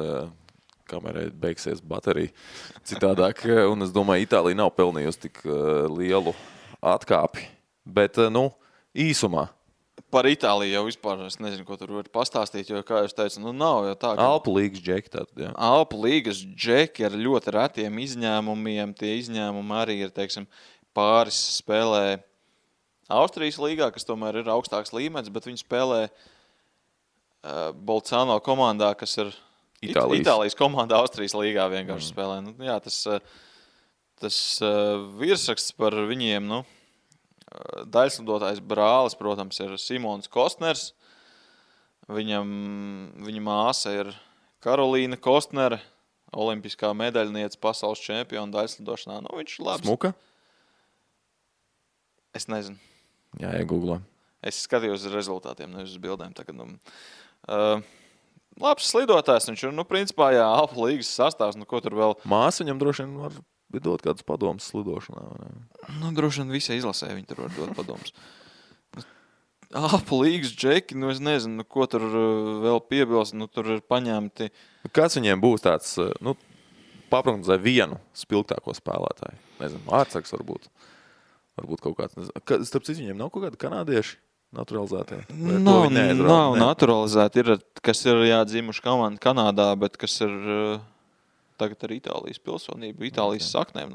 kamerai beigsies baterija citādāk. Un es domāju, Itālija nav pelnījusi tik lielu atkāpi. Bet, īsumā. Par Itāliju jau vispār es nezinu, ko tur var pastāstīt, jo, kā jūs teicu, nav jau tā. Alpu līgas džeki tātad, jā. Alpu līgas džeki ar ļoti retiem izņēmumiem. Tie izņēmumi arī ir, pāris spēlē Austrijas līgā, kas tomēr ir augstāks līmenis, bet viņi spēlē Bolzano komandā, kas ir Itālijas komanda Austrijas līgā vienkārši spēlē. Jā, tas virsraksts par viņiem, daļslidotājs brālis, protams, ir Simons Kostners. Viņa māsa ir Karolīna Kostnere, olimpiskā medaļniece, pasaules čempiona daļslidošanā. Viņš ir labs. Smuka? Es nezinu. Jā, iegooglē. Es skatījos uz rezultātiem, nevis uz bildēm. Tagad, labs slidotājs, viņš ir, principā, jā, Alpu līgas sastāvs, ko tur vēl. Māsa viņam droši vien var dot kādus padomus slidošanā. Droši vien visai izlasē viņi tur var dot padomus. Alpu līgas džeki, es nezinu, ko tur vēl piebilst, tur ir paņemti. Kāds viņiem būs tāds, paprognozē vienu spilgtāko spēlētāju? Nezinu, ārtsargs varbūt. Varbūt kaut kāds, nezinu. Starp citu, viņiem nav kaut kādi kanādieši? Naturalizētie? Nav naturalizēti. Ir, kas ir dzimuši komanda Kanādā, bet kas ir tagad ar Itālijas pilsonību, Itālijas saknēm.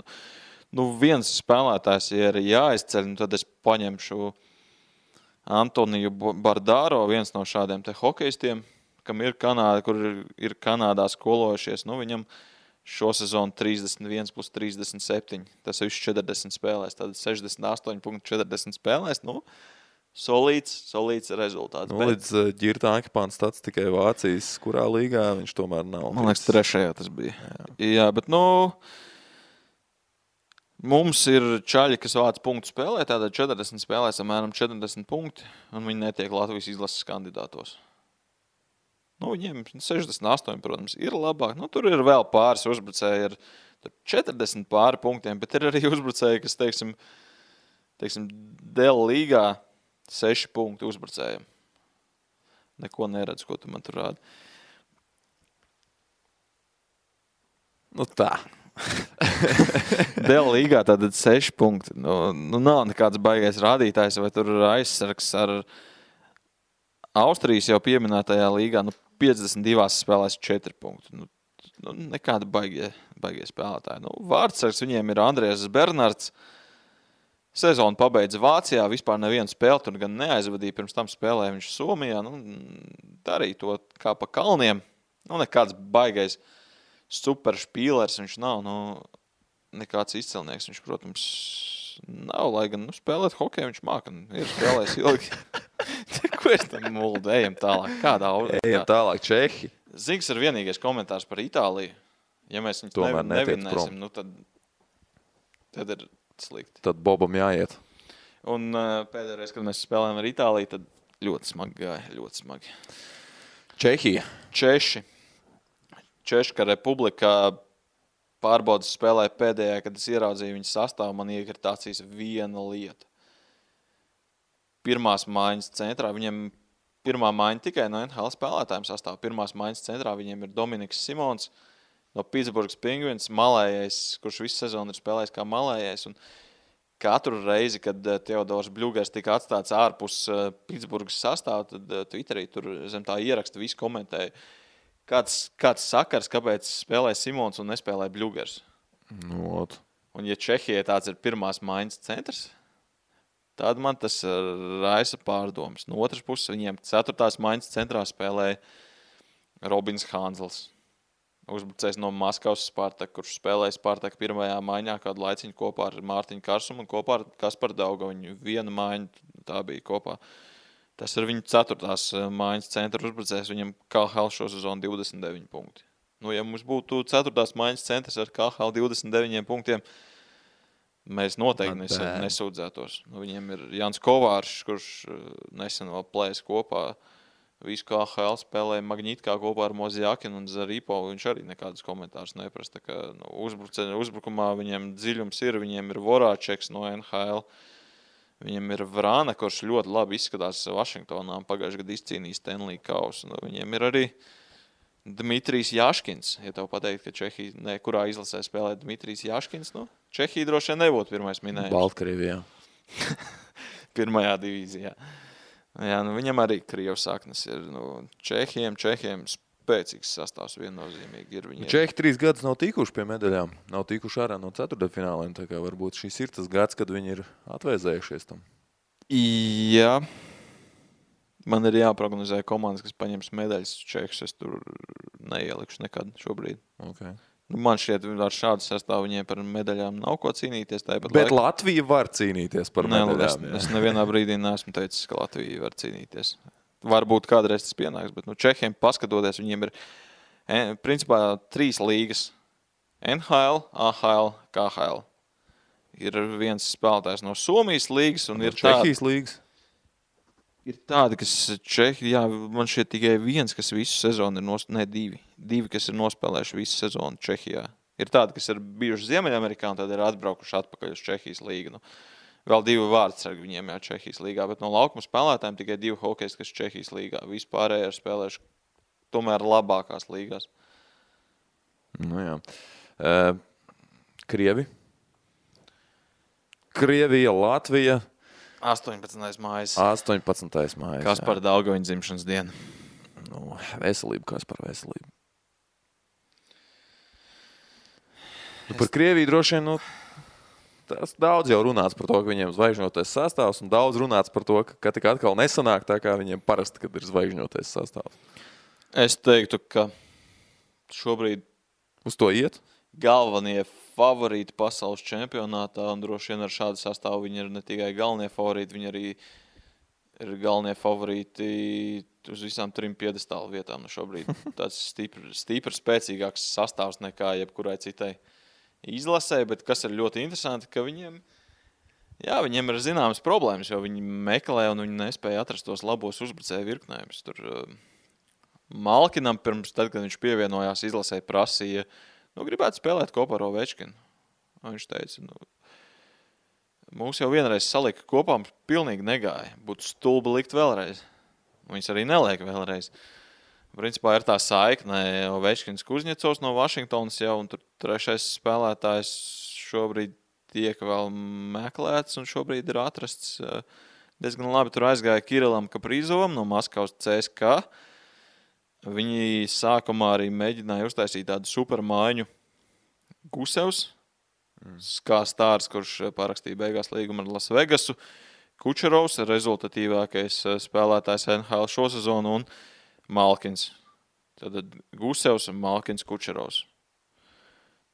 Viens spēlētājs, ja ir jāizceļ, tad es paņemšu Antoniju Bardāro, viens no šādiem te hokejistiem, kam ir kur ir Kanādā skolojušies. Viņam šo sezonu 31 plus 37. Tas ir 40 spēlēs, tad 68,40 spēlēs. Solīts rezultāts. Līdz Ģirta Ankipāns tāds tikai Vācijas, kurā līgā viņš tomēr nav. Man liekas, 3. tas bija. Jā, bet mums ir čaļi, kas vāc punktu spēlē, tātad 40 spēlēs apmēram 40 punkti, un viņi netiek Latvijas izlases kandidātos. Viņiem 68, protams, ir labāk. Tur ir vēl pāris uzbrucēji ar 40 pāri punktiem, bet ir arī uzbrucēji, kas, teiksim, Dēla līgā 6 punkti uzbrucējiem. Neko neredz, ko tu man tur rādi. Tā. Dēļ līgā tātad 6 punkti. Nu nav nekāds baigais rādītājs, vai tur aizsargs ar Austrijas jau pieminētajā līgā. 52 spēlēs 4 punkti. Nekāda baigie spēlētāji. Vārdsargs viņiem ir Andrēs Bernards. Sezonu pabeidza Vācijā, vispār nevienu spēli tur gan neaizvadīja. Pirms tam spēlēja viņš Somijā. Darīja to kā pa kalniem. Nekāds baigais super špīlers viņš nav. Nekāds izcilnieks viņš, protams, nav. Lai gan spēlēt hokeju viņš māka. Ir spēlējis ilgi. Ko es tam muldu? Ejam tālāk. Ejam tālāk. Čehi. Zigs ir vienīgais komentārs par Itāliju. Ja mēs viņus nevinēsim, tad ir slikti. Tad Bobam jāiet. Un pēdējais, kad mēs spēlējām ar Itāliju, tad ļoti smagi gāja. Ļoti smagi. Čehija. Češka republikā pārbaudas spēlēja pēdējā, kad es ieraudzīju viņu sastāvu, man iekrita acīs viena lieta. Pirmās maiņas centrā, viņiem pirmā maiņa tikai no NHL spēlētājiem sastāv. Pirmās maiņas centrā viņiem ir Dominiks Simons no Pitsburgas Penguins, malējais, kurš visu sezonu ir spēlējis kā malējais. Un katru reizi, kad Teodors Bļugers tika atstāts ārpus Pitsburgas sastāvu, tad Twitterī tur zem tā ieraksta visi komentēja. Kāds sakars, kāpēc spēlē Simons un nespēlē Bļugers? Un ja Čehijai tāds ir pirmās maiņas centrs, tad man tas raisa pārdomas. No otras puses, viņiem 4. maiņas centrā spēlēja Robins Hanzels. Uzbrucējs no Maskavas Spartak, kurš spēlēja Spartak pirmajā maiņā kādu laiciņu kopā ar Mārtiņu Karsumu un kopā ar Kasparu Daugaviņu. Viena maiņa tā bija kopā. Tas ir viņu 4. maiņas centra uzbrucējs. Viņam KHL šo sezonu 29 punkti. Ja mums būtu 4. maiņas centrs ar KHL 29 punktiem, mēs noteikti nesūdzētos. Viņiem ir Jans Kovāršs, kurš nesen vēl plēs kopā. Visu KHL spēlēja Magnītkā kopā ar Mozjakinu un Zaripo. Viņš arī nekādus komentārus neprasa. Uzbrukumā viņiem dziļums ir. Viņiem ir Vorāčeks no NHL. Viņiem ir Vrāna, kurš ļoti labi izskatās Vašingtonā. Pagājušajā gadā izcīnīja Stanley kausu. Viņiem ir arī Dmitrijs Jaškins. Ja tev pateikt, ka Čehija kurā izlasē spēlē Dmitrijs Jaškins, Čehija droši vien nebūtu pirmais minējums. Baltkrievijā. Pirmajā divīzijā. Jā, viņam arī Krievas saknes ir. Čehiem spēcīgs sastāvs viennozīmīgi ir. Čehi 3 gadus nav tikuši pie medaļām. Nav tikuši ārā no 4. fināliem. Tā kā varbūt šis ir tas gads, kad viņi ir atvēzējušies tam. Jā. Man ir jāprognozē komandas, kas paņems medaļas Čehus. Es tur neielikšu nekad šobrīd. Okay. Man šķiet, ar šādu sastāvu viņiem par medaļām nav ko cīnīties. Bet Latvija var cīnīties par medaļām. Es nevienā brīdī neesmu teicis, ka Latvija var cīnīties. Varbūt kādreiz tas pienāks, bet Čehiem paskatoties, viņiem ir principā 3 līgas. NHL, AHL, KHL. Ir viens spēlētājs no Somijas līgas un ir Čehijas līgas. Ir tādi, kas Čehija, man šeit tikai viens, kas visu sezonu ir divi, kas ir nospēlējuši visu sezonu Čehijā. Ir tādi, kas ir bijuši Ziemeļamerikā un tad ir atbraukuši atpakaļ uz Čehijas līgu. Vēl 2 vārdsargi viņiem Čehijas līgā, bet no laukuma spēlētājiem tikai 2 hokejisti, kas Čehijas līgā. Vispārēji ir spēlējuši tomēr labākās līgās. Jā. Krievija, Latvija. 18. mājas. 18. mājas. Kaspara Daugaviņa dzimšanas diena. Veselība, Kaspara veselība. Par Krieviju droši vien, tas daudz jau runāts par to, ka viņiem zvaigžņotais sastāvs, un daudz runāts par to, ka tik atkal nesanāk tā, kā viņiem parasti, kad ir zvaigžņotais sastāvs. Es teiktu, ka šobrīd uz to iet? Galvenie favorīti pasaules čempionātā, un droši vien ar šādu sastāvu viņi ir ne tikai galvenie favorīti, viņi arī ir galvenie favorīti uz visām 3 piedestālu vietām šobrīd. Tāds stipri spēcīgāks sastāvs nekā jebkurai citai izlasē, bet kas ir ļoti interesanti, ka viņiem ir zināmas problēmas, jo viņi meklē un viņi nespēja atrast tos labos uzbrucēju virknējumus. Tur Malkinam pirms tad, kad viņš pievienojās izlasē, prasīja, gribētu spēlēt kopā ar Ovečkinu. Viņš teica, mūs jau vienreiz salika kopā, pilnīgi negāja. Būtu stulbi likt vēlreiz. Viņus arī neliek vēlreiz. principā ir tā saikne Ovečkins Kuzņecovs no Vašingtonas jau, un tur trešais spēlētājs šobrīd tiek vēl meklēts, un šobrīd ir atrasts diezgan labi. Tur aizgāja Kirilam Kaprīzovam no Maskavas CSKA. Viņi sākumā arī mēģināja uztaisīt tādu supermaiņu Gusevs, kā stārs, kurš parakstīja beigās līgumu ar Las Vegasu. Kučerovs, rezultatīvākais spēlētājs NHL šo sezonu, un Malkins. Tad Gusevs un Malkins Kučerovs.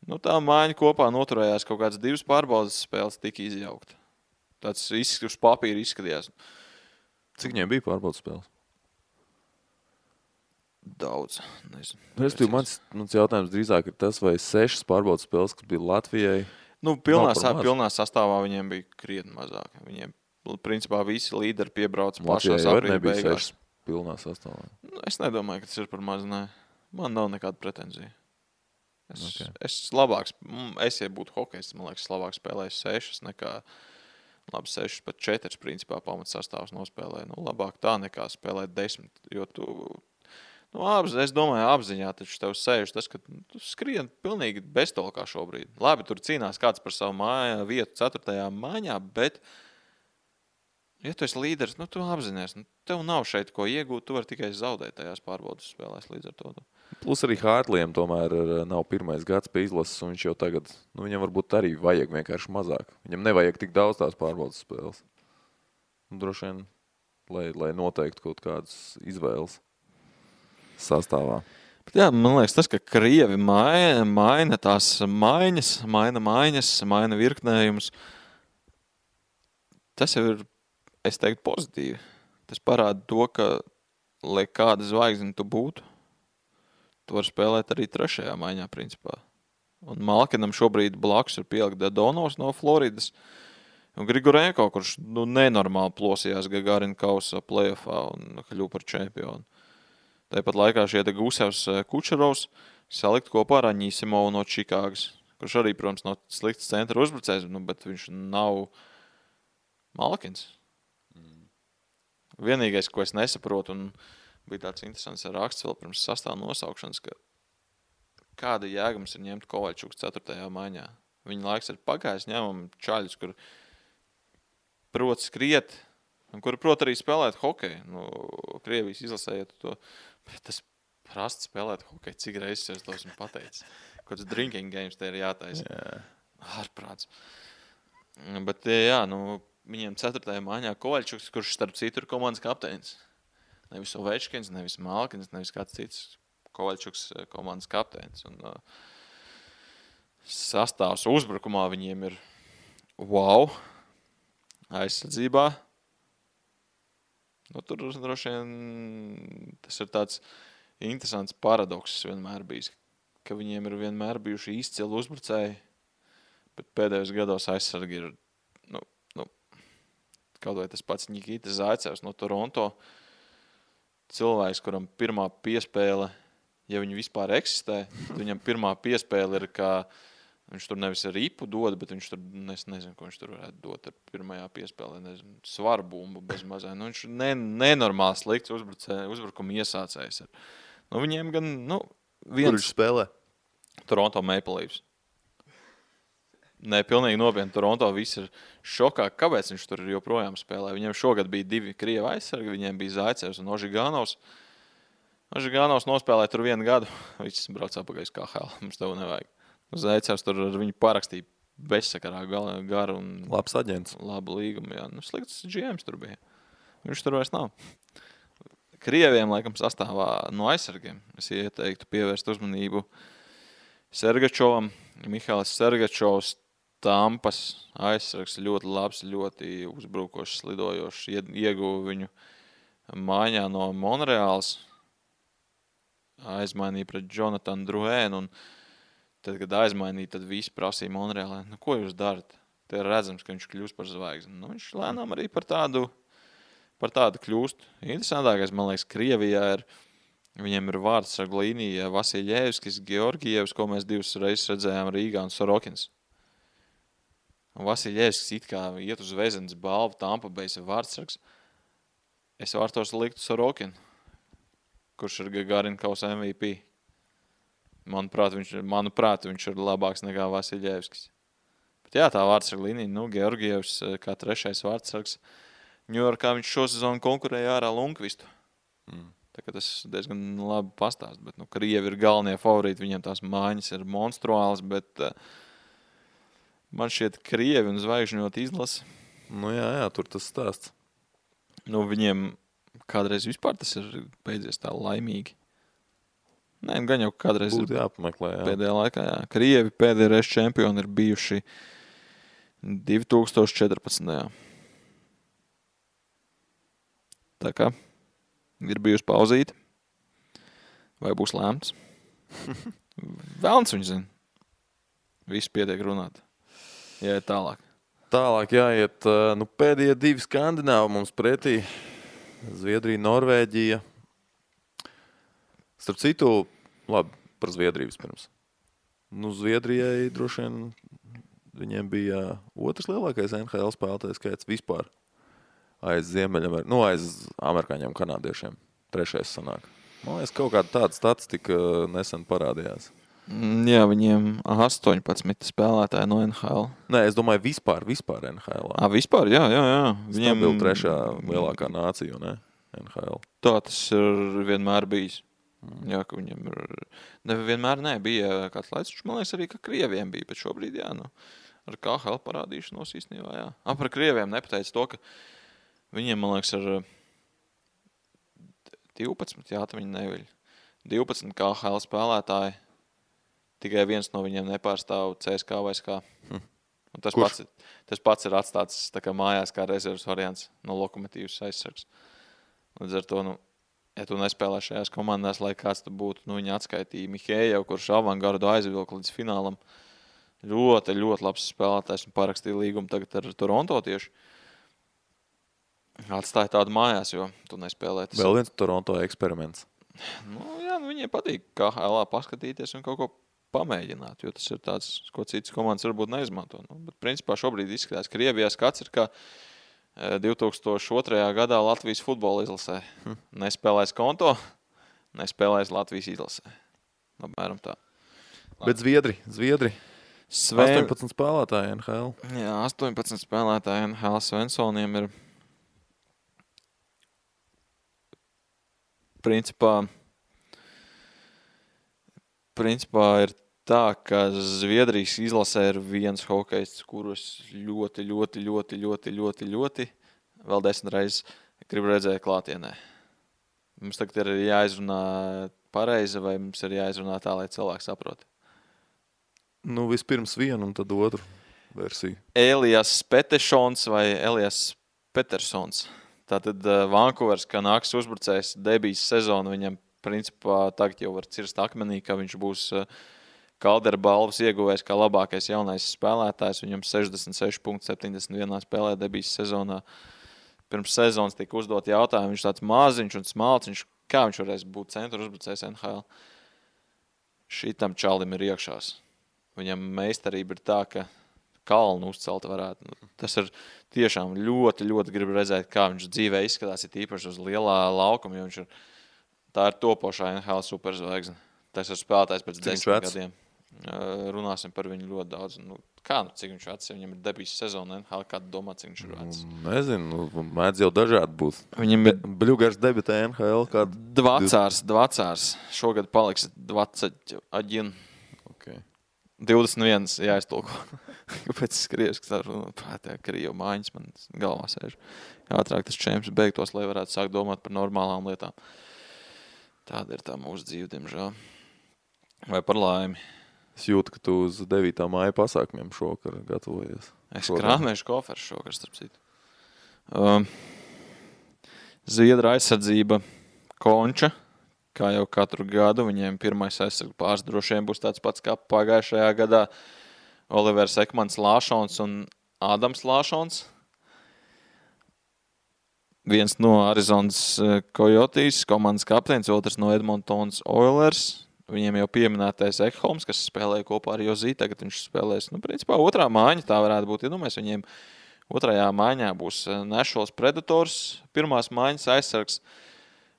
Nu, tā maiņa kopā noturējās kaut kādas 2 pārbaudas spēles, tika izjaukta. Tāds uz papīra izskatījās. Cik viņiem bija pārbaudas spēles? Daudz. Nezinu. Mans jautājums drīzāk ir tas, vai 6 pārbaudas spēles, kas bija Latvijai. Nu, pilnā sastāvā viņiem bija krietni mazāk. Viņiem, principā, visi līderi piebrauca pašās aprīļa beigās. Pilnā sastāvā. Nu, es nedomāju, ka tas ir par maz, nē. Man nav nekāda pretenzija. Ja būtu hokejs, man liekas, labāk spēlēju 6 nekā, labi, 6 pat 4, principā, pamats sastāvs nospēlēja. Nu, labāk tā nekā spēlēt 10, jo tu, es domāju, apziņā taču tev sēž tas, ka tu skrien pilnīgi beztolkā šobrīd. Labi, tur cīnās kāds par savu vietu 4. maiņā, bet, ja tu esi līderis, tu apzinies, tev nav šeit ko iegūt, tu vari tikai zaudēt tajās pārbaudas spēlēs līdz ar to. Plus arī Hārtlijam tomēr nav pirmais gads pie izlases, un viņš jau tagad, viņam varbūt arī vajag vienkārši mazāk. Viņam nevajag tik daudz tās pārbaudas spēles. Droši vien, lai noteiktu kaut kādas izvēles sastāvā. Bet jā, man liekas, tas, ka Krievi maina tās maina virknējumus, tas jau ir, es teiktu, pozitīvi. Tas parāda to, ka, lai kāda zvaigzne tu būtu, tu vari spēlēt arī 3. maiņā, principā. Un Malkinam šobrīd blakus ir pielikt Dadonovs no Floridas, un Grigorenko, kurš nenormāli plosījās Gagarina kausa playoffā un kļuva par čempionu. Tāpat laikā šie Gusevs Kučerovs salikt kopā ar Aņīsimovu no Čikāgas, kurš arī, protams, nav slikts centra uzbrucējs, bet viņš nav Malkins. Vienīgais, ko es nesaprotu, un bija tāds interesants raksts vēl pirms sastāva nosaukšanas, ka kāda jēga mums ir ņemt Kovaļčuks 4. maiņā. Viņa laiks ir pagājis, ņemam čaļus, kur prot skriet, un kur prot arī spēlēt hokeju. Krievijas izlasējot to, bet tas prasti spēlēt hokeju, cik reizes es to esmu pateicis. Kāds drinking games te ir jātaisa. Ārprāts. Bet jā, viņiem 4. maiņā Kovaļčuks, kurš starp citu ir komandas kapteinis. Nevis Ovečkins, nevis Malkins, nevis kāds cits. Kovaļčuks komandas kapteinis. Un sastāvs uzbrukumā viņiem ir wow. Aizsardzībā. Tur droši vien tas ir tāds interesants paradoks vienmēr bijis, ka viņiem ir vienmēr bijuši izcili uzbrucēji, bet pēdējos gados aizsargi ir, kaut vai tas pats Nikita Zaicevs no Toronto, cilvēks, kuram pirmā piespēle, ja viņi vispār eksistē, tad viņam pirmā piespēle ir, ka viņš tur nevis ar ripu dod, bet viņš tur, es nezinu, ko viņš tur varētu dot ar pirmajā piespēlē, nezinu, svaru bumbu bez mazai. Viņš nenormāli slikts uzbrukuma iesācējs. Viņiem gan, viens... Kur viņš spēlē? Toronto Maple Leafs. Nē, pilnīgi nopietni. Toronto viss ir šokā, kāpēc viņš tur joprojām spēlē. Viņiem šogad bija 2 Krieva aizsargi, viņiem bija Zaicevs un Ožiganovs. Ožiganovs nospēlēja tur 1 gadu, viņš brauc apakaļ uz KHL, mums tev nevajag. Zaicevs tur ar viņu parakstīja bezsakarā garu un labs aģents. Labu līgumu, jā. Slikts GMs tur bija. Viņš tur vairs nav. Krieviem, laikam, sastāvā no aizsargiem. Es ieteiktu pievērst uzmanību Sergačovam. Mihālis Sergačovs, Tampas aizsargs, ļoti labs, ļoti uzbrukošs, slidojošs. Ieguva viņu maiņā no Monreāls. Aizmainīja pret Jonatanu Drouhēnu un tad, kad aizmainīja, tad visi prasīja Monreālē, ko jūs darat? Te ir redzams, ka viņš kļūst par zvaigzni. Viņš lēnām arī par tādu kļūst. Interesantākais, man liekas, Krievijā ir, viņiem ir vārdsargu līnija Vasiljevskis, Georgievs, ko mēs 2 reizes redzējām Rīgā, un Sorokins. Un Vasiljevskis it kā iet uz Vezenes balvu, Tampa Bay vārdsargs. Es vārtos liktu Sorokinu. kurš ir Gagarinkaus MVP. Manuprāt, viņš ir labāks nekā Vasiļevskis. Bet jā, tā vārdsarga līnija, Georgievs kā 3. vārdsargs. Ņujorkā viņš šo sezonu konkurēja ārā Lundqvistu. Tā kā tas diezgan labi pastāst, bet Krievi ir galvenie favorīti, viņiem tās mājas ir monstruāls, bet man šķiet Krievi un zvaigžņot izlase. Jā, tur tas stāsts. Viņiem kādreiz vispār tas ir beidzies tā laimīgi. Nē, gan jau kādreiz būtu jāpameklē. Jā. Pēdējā laikā, jā. Krievi pēdējā reize čempioni ir bijuši 2014. Tā kā ir bijusi pauzīte. Vai būs lēmts? Velns viņš zina. Viss pietiek runāt. Jāiet tālāk. Tālāk jāiet. Pēdējie 2 skandināvi mums pretī. Zviedrija, Norvēģija. Starp citu, labi, par Zviedriju vispirms. Zviedrijai droši vien viņiem bija otrs lielākais NHL spēlētājs skaits vispār. Aiz aiz amerikāņiem, kanādiešiem. 3. sanāk. Man liekas, kaut kāda tāda statistika nesen parādījās. Jā, viņiem 18 spēlētāji no NHL. Nē, es domāju vispār NHL. Vispār, jā. Viņiem bija 3. lielākā nācija, ne? NHL. Tā tas ir vienmēr bijis. Jā, ka viņam ir... Nevienmēr bija kāds laiks, man liekas arī, ka Krieviem bija, bet šobrīd, jā, ar KHL parādīšanos īstenībā, jā. Par Krieviem nepateica to, ka viņiem, man liekas, ir 12, jā, tā viņi neviļ. 12 KHL spēlētāji, tikai viens no viņiem nepārstāv CSKA vai SKA. Tas pats ir atstāts tā kā mājās kā rezerves variants no Lokomotīvas aizsargs. Līdz ar to, ja tu nespēlē šajās komandās, lai kāds tu būtu, viņa atskaitīja Mihējev, kurš avangardu aizvilka līdz finālam. Ļoti, ļoti labs spēlētājs un parakstīja līgumu tagad ar Toronto tieši. Atstāja tādu mājās, jo tu nespēlē. Vēl viens Toronto eksperiments. Jā, viņiem patīk KHL paskatīties un kaut ko pamēģināt, jo tas ir tāds, ko citas komandas varbūt neizmanto. Bet principā šobrīd izskatās, ka Krievijā skats ir kā 2002. gadā Latvijas futbola izlasē. Nespēlēs konto, nespēlēs Latvijas izlasē. Apmēram tā. Bet Zviedri. 18 spēlētāji NHL. Jā, 18 spēlētāji NHL Svensoniem ir principā ir tā, ka Zviedrijas izlasē ir viens hokejists, kurus ļoti vēl 10 reizes gribu redzēt klātienē. Mums tagad ir jāizrunā pareizi vai mums ir jāizrunā tā, lai cilvēki saprot? Vispirms vienu un tad otru versiju. Elias Petešons vai Elias Petersons. Tātad Vancouveras Canucks uzbrucējs debijas sezonu viņam principā tagad jau var cirst akmenī, ka viņš būs Kaldera balvas ieguvējs kā labākais jaunais spēlētājs. Viņam 66,71 spēlē debijas sezonā. Pirms sezonas tika uzdot jautājumu, viņš tāds maziņš un smalciņš, kā viņš varēs būt centra uzbrucējs NHL. Šitam čalim ir iekšās. Viņam meistarība ir tā, ka kalnu uzcelt varētu. Tas ir tiešām ļoti gribu redzēt, kā viņš dzīvē izskatās, ir īpaši uz lielā laukuma, jo viņš ir, tā ir topošā NHL superzvaigzne. Tas ir spēlētājs pēc 10 gadiem. Runāsim par viņu ļoti daudz. Cik viņš vecs? Viņam ir debijas sezona NHL, kādu domā, cik viņš ir vecs? Nezinu, mēdz jau dažādi būt. Viņam ir Bļugars debitē NHL kādu? Dvacārs. Šogad paliks 21. Okay. 21, jāiztulko. Kāpēc es krievski tā Krievu mājiņas man galvā sēž. Ātrāk tas čemps beigtos, lai varētu sākt domāt par normālām lietām. Tāda ir tā mūsu dzīve, diemžēl. Vai par laimi? Es jūtu, ka tu uz 9. māja pasākumiem šokar gatavojies. Es krāmēšu koferu šokar, starp citu. Zviedra aizsardzība Konča. Kā jau katru gadu, viņiem pirmais aizsargu pāris droši vien būs tāds pats kā pagājušajā gadā. Olivers Ekmans Lāšons un Ādams Lāšons. Viens no Arizonas Coyotes, komandas kapteinis, otrs no Edmontons Oilers. Viņiem jau pieminētais Ekholms, kas spēlēja kopā ar Jozī, tagad viņš spēlēs, principā otrā mājiņa, tā varētu būt. Iedomājies, viņiem otrajā mājiņā būs Nashville Predators, pirmās mājiņas aizsargs.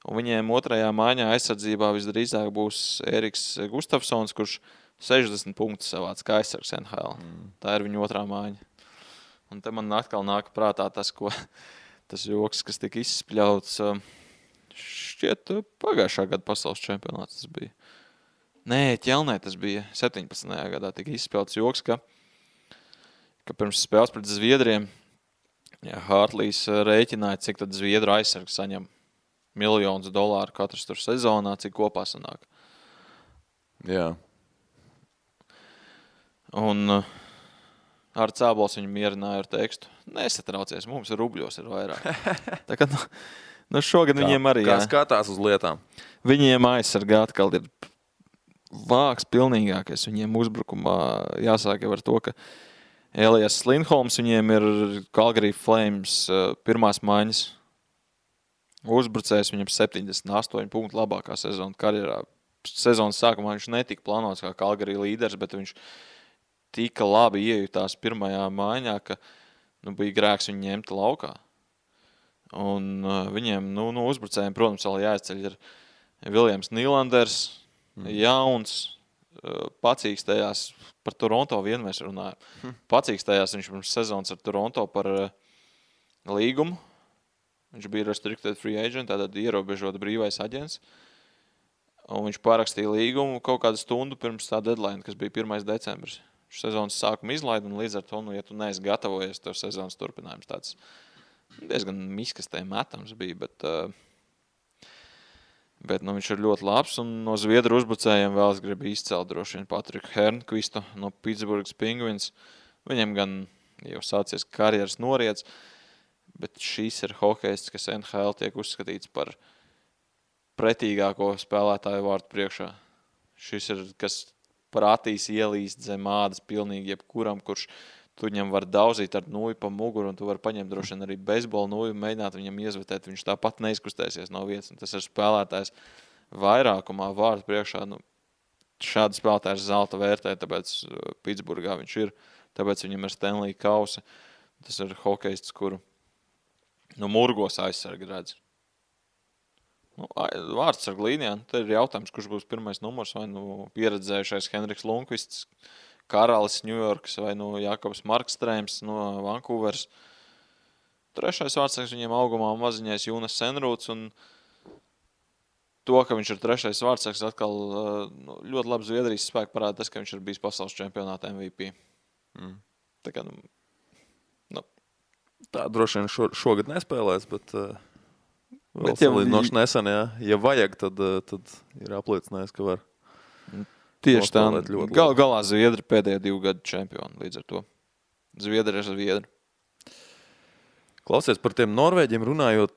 Un viņiem otrajā maiņā aizsardzībā visdrīzāk būs Eriks Gustafsons, kurš 60 punktus savāc kā aizsargs NHL. Tā ir viņa otrā maiņa. Un te man atkal nāk prātā tas joks, kas tika izspļauts. Šķiet, pagājušā gada pasaules čempionāts tas bija. Nē, Ķelnē tas bija 17. gadā tika izspļauts joks, ka pirms spēles pret Zviedriem Hartlīs rēķināja, cik tad Zviedru aizsargs saņem $1 000 katrs tur sezonā, cik kopā sanāk. Jā. Un ar Cābols viņu mierināja ar tekstu. Nesatraucies, mums rubļos ir vairāk. Tā kā, šogad viņiem arī, Kā skatās uz lietām? Viņiem aizsargā atkal ir vāks pilnīgākais. Viņiem uzbrukumā jāsāk jau ar to, ka Elijas Lindholms viņiem ir Calgary Flames pirmās maiņas uzbrucējs. Viņam 78 punktu labākā sezona karjerā. Sezonas sākumā viņš netika plānots kā Calgary līderis, bet viņš tika labi iejutās pirmajā maiņā, ka bija grēks viņu ņemt laukā. Un viņiem, uzbrucējiem, protams, vēl jāizceļ ir Viljams Nīlanders, jauns, pacīkstējās par Toronto vien mēs runājam. Pacīkstējās viņš pirms sezonas ar Toronto par līgumu. Viņš bija restricted free agent, tātad ierobežota brīvais aģents. Un viņš parakstīja līgumu kaut kādu stundu pirms tā deadline, kas bija 1. decembris. Sezonas sākuma izlaida, un līdz ar to, ja tu neesi gatavojies, tev sezonas turpinājums tāds diezgan miskastē metams bija, bet viņš ir ļoti labs, un no Zviedru uzbrucējiem vēl es gribu izcelt droši vien Patriku Hernqvistu no Pittsburghas Penguins. Viņam gan jau sācies karjeras noriets, bet šīs ir hokejists, kas NHL tiek uzskatīts par pretīgāko spēlētāju vārtu priekšā. Šis ir, kas prātīs ielīst zem ādas pilnīgi jebkuram, kurš tu viņam var dauzīt ar nūju pa muguru, un tu var paņemt droši vien arī beisbola nūju, mēģināt viņam iezvetēt, viņš tāpat neizkustēsies no vietas, un tas ir spēlētājs vairākumā vārtu priekšā. Šādi spēlētājs zelta vērtē, tāpēc Pitsburgā viņš ir, tāpēc viņam ir Stanley kausa. Tas ir hokejists, kuru murgos aizsargi redz. Vārdsargu līnijā, te ir jautājums, kurš būs pirmais numurs, vai pieredzējušais Henriks Lundqvists, Karalis Ņujorkas, vai Jakobs Markstrēms no Vancouveras. Trešais vārdsargs viņiem augumā maziņais Jūnas Senrūts, un to, ka viņš ir trešais vārdsargs, atkal ļoti labi Zviedrijas spēku parāda tas, ka viņš ir bijis pasaules čempionāta MVP. Tā kā, Tā droši vien šogad nespēlēs, bet vēl salīdzinoši nesen, ja vajag, tad ir apliecinājis, ka var. Tieši tā. Galā Zviedri pēdējā 2 gadu čempioni līdz ar to. Zviedri ir Zviedri. Klausies, par tiem Norvēģiem runājot,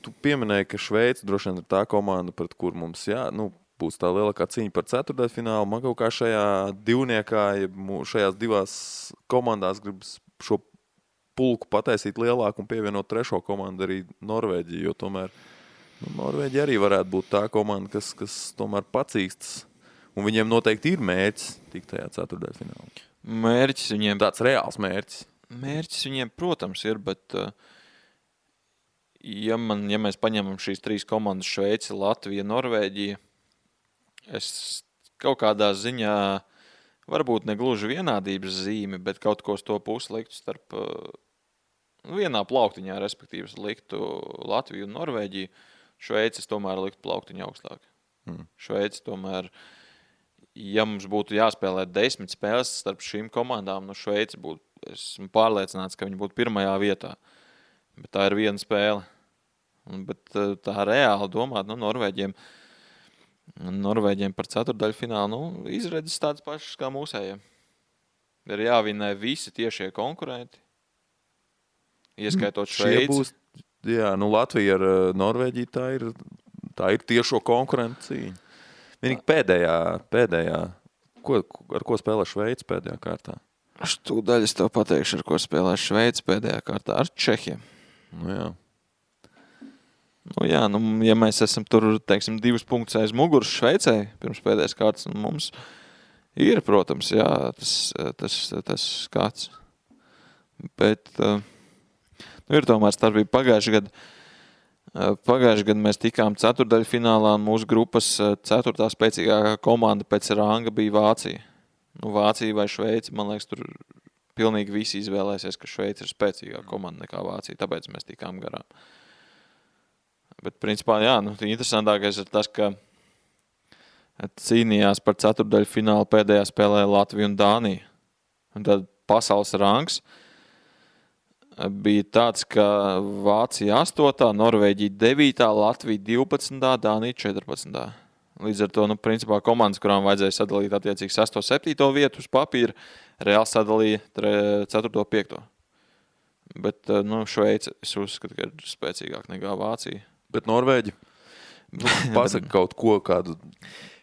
tu pieminēji, ka Šveica droši vien ir tā komanda, pret kur mums būs tā lielākā cīņa par ceturtdaļfinālu. Man kaut kā šajā divniekā, šajās divās komandās gribas šo pulku pataisīt lielāku un pievienot trešo komandu arī Norvēģiju, jo tomēr Norvēģi arī varētu būt tā komanda, kas tomēr pacīkstas. Un viņiem noteikti ir mērķis tikt tajā ceturtdaļfinālā. Mērķis viņiem... Tāds reāls mērķis. Mērķis viņiem, protams, ir, bet ja mēs paņemam šīs 3 komandas Šveici, Latvija, Norvēģija, es kaut kādā ziņā varbūt negluži vienādības zīme, bet kaut ko uz to pusi liktu starp vienā plauktiņā, respektīvi liktu Latviju un Norvēģiju. Šveicis tomēr liktu plauktiņu augstāk. Šveicis tomēr, ja mums būtu jāspēlē 10 spēles starp šīm komandām, Šveicis būtu, esmu pārliecināts, ka viņi būtu pirmajā vietā. Bet tā ir viena spēle. Bet tā reāli domāt, Norvēģiem par ceturtdaļfinālu, izredzes tādas pašas kā mūsējiem. Ir jāvinē visi tiešie konkurenti, ieskaitot Šveici. Latvija ar Norvēģiju tā ir tiešo konkurentu cīņa. Vienīgi pēdējā, ar ko spēlē Šveici pēdējā kārtā? Tūdaļ es tev pateikšu, ar ko spēlē Šveici pēdējā kārtā, ar Čehiem. Ja mēs esam tur, 2 punktus aiz muguras Šveicē pirms pēdējās kārtas, mums ir, protams, tas skats. Bet ir tomēr starpība pagājušajā gadā. Pagājušajā gadā mēs tikām ceturtdaļfinālā, un mūsu grupas ceturtā spēcīgākā komanda pēc ranga bija Vācija. Vācija vai Šveice, man liekas, tur pilnīgi visi izvēlēsies, ka Šveice ir spēcīgāka komanda nekā Vācija, tāpēc mēs tikām garām. Bet, principā, jā, interesantākais ir tas, ka cīnījās par ceturtdaļfinālu pēdējā spēlē Latviju un Dāniju. Un tad pasaules rangs bija tāds, ka Vācija 8, Norvēģija 9, Latvija 12, Dānija 14. Līdz ar to, principā, komandas, kurām vajadzēja sadalīt attiecīgi 6. 7. vietu uz papīra, reāli sadalīja 4. 5. Bet, Šveice, es uzskatu, ka ir spēcīgāk nekā Vācija. Bet Norvēģi? Pasaka kaut ko, kādu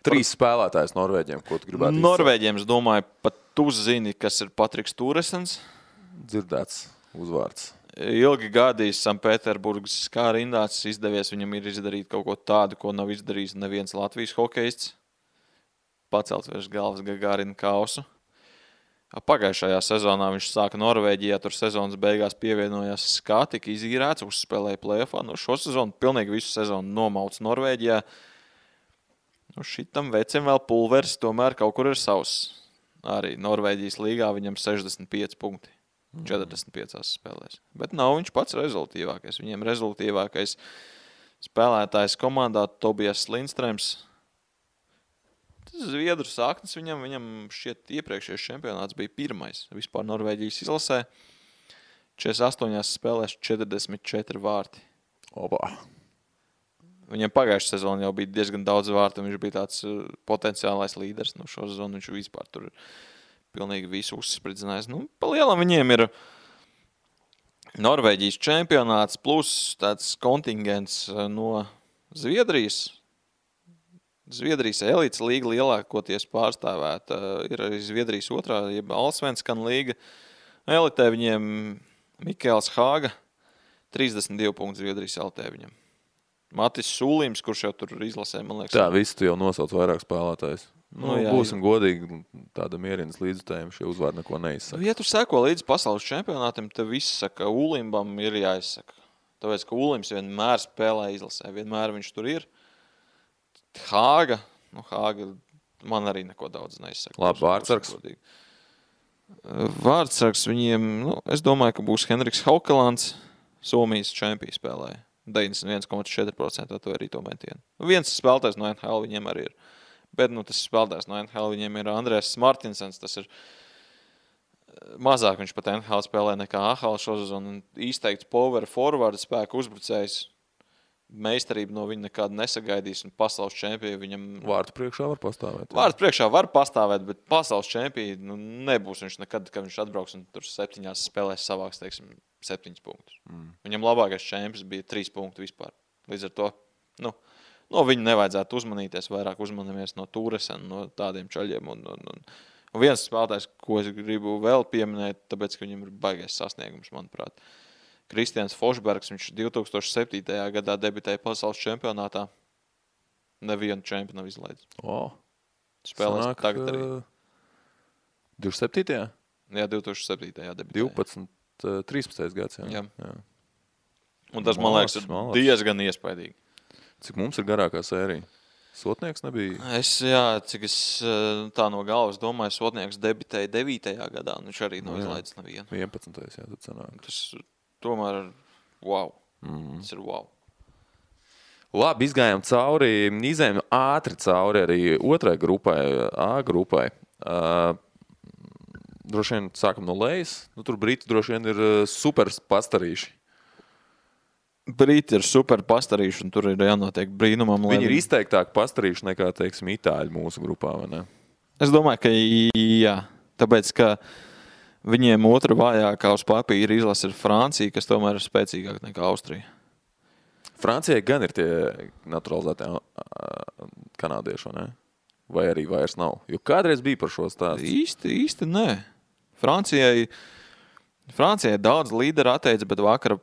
3 spēlētājs Norvēģiem, ko tu gribētu izsākt? Norvēģiem, es domāju, pat tu zini, kas ir Patriks Turesens. Dzirdēts uzvārds. Ilgi gadījis Sanktpēterburgas kā rindāts, izdevies viņam ir izdarīt kaut ko tādu, ko nav izdarījis neviens Latvijas hokejists. Pacelt virs galvas Gagārina kausu. Pagājušajā sezonā viņš sāka Norvēģijā, tur sezonas beigās pievienojās Skā, tika izīrēts, uzspēlēja play-offā. Šo sezonu, pilnīgi visu sezonu nomauts Norvēģijā. Šitam vecim vēl pulveris, tomēr kaut kur ir savs. Arī Norvēģijas līgā viņam 65 punkti. 45 spēlēs. Bet nav viņš pats rezultīvākais. Viņiem rezultīvākais spēlētājs komandā Tobijas Lindstrēms. Zviedru sāknis viņam šķiet iepriekšējais čempionāts bija pirmais. Vispār Norvēģijas izlasē 48 spēlēs 44 vārti. Opa. Viņam pagājušā sezona jau bija diezgan daudz vārtu, un viņš bija tāds potenciālais līderis. Šo sezonu viņš vispār tur pilnīgi visu uzspridzinājis. Pa lielam viņiem ir Norvēģijas čempionāts plus tāds kontingents no Zviedrijas. Zviedrijas elites līga lielākoties pārstāvēta. Ir arī Zviedrijas otrā, jeb Allsvenskan līga. Elitē viņiem Mikēls Hāga, 32 punktu Zviedrijas elitē viņam. Matis Sūlīms, kurš jau tur izlasē, man liekas. Tā, visi tu jau nosauc vairāk spēlētājs. Jā, būsim godīgi, tāda mierinas līdzutējuma šie uzvārdi neko neizsaka. Ja tu seko līdz pasaules čempionātam, tad viss saka, Ulimbam ir jāizsaka. Tāpēc, ka Ulims vienmēr spēlē izlasē, vienmēr viņš tur ir. Hāga man arī neko daudz neizsaka. Labi, vārdsargs. Vārdsargs viņiem, es domāju, ka būs Henriks Haukelands, Somijas čempija spēlēja. 91,4% to arī to metienu. Viens spēlētājs no NHL viņiem arī ir. Bet tas spēlētājs no NHL viņiem ir Andrēs Martinsens. Tas ir mazāk viņš pat NHL spēlē nekā AHL šosezonu. Izteikts power forward spēku uzbrucējs. Meistarība no viņa nekāda nesagaidīs, un pasaules čempija viņam... Vārtu priekšā var pastāvēt. Vārtu priekšā var pastāvēt, bet pasaules čempija nebūs viņš nekad, kad viņš atbrauks un tur 7 spēlēs savāks, 7 punktus. Viņam labākais čempions bija 3 punktu vispār. Līdz ar to, no viņa nevajadzētu uzmanīties, vairāk uzmanamies no Turesena, no tādiem čaļiem. Un viens spēlētājs, ko es gribu vēl pieminēt, tāpēc, ka viņam ir baigais sasniegums, manuprāt. Kristians Fošbergs, viņš 2007. gadā debitēja pasaules čempionātā. Nevienu čempionu nav izlaidis. Spēlēs Sanāk, tagad arī. 27. Jā, 2007. debitēja. 12, 13. gads. Jā. Un tas, man liekas, ir diezgan iespaidīgi. Cik mums ir garākā sērija? Sotnieks nebija? Cik es tā no galvas domāju, Sotnieks debitēja 9. gadā, un viņš arī nav izlaidis nevienu. 11. Tad sanāk. Tas tomēr wow. Tas ir wow. Labi, izgājām cauri, izējām ātri cauri arī otrai grupai, A grupai. Droši vien sākam no lejas. Tur Briti droši vien ir super pastarīši. Briti ir super pastarīši, un tur ir jānotiek brīnumam. Viņi ir izteiktāk pastarīši nekā, teiksim, itāļi mūsu grupā, vai ne? Es domāju, ka jā. Tāpēc, ka viņiem otra vājākā uz papīra izlase ir Francija, kas tomēr ir spēcīgāk nekā Austrija. Francijai gan ir tie naturalizētie kanādieši, vai ne? Vai arī vairs nav? Jo kādreiz bija par šo stāstu. Īsti nē. Francijai daudz līderi atteica, bet vakar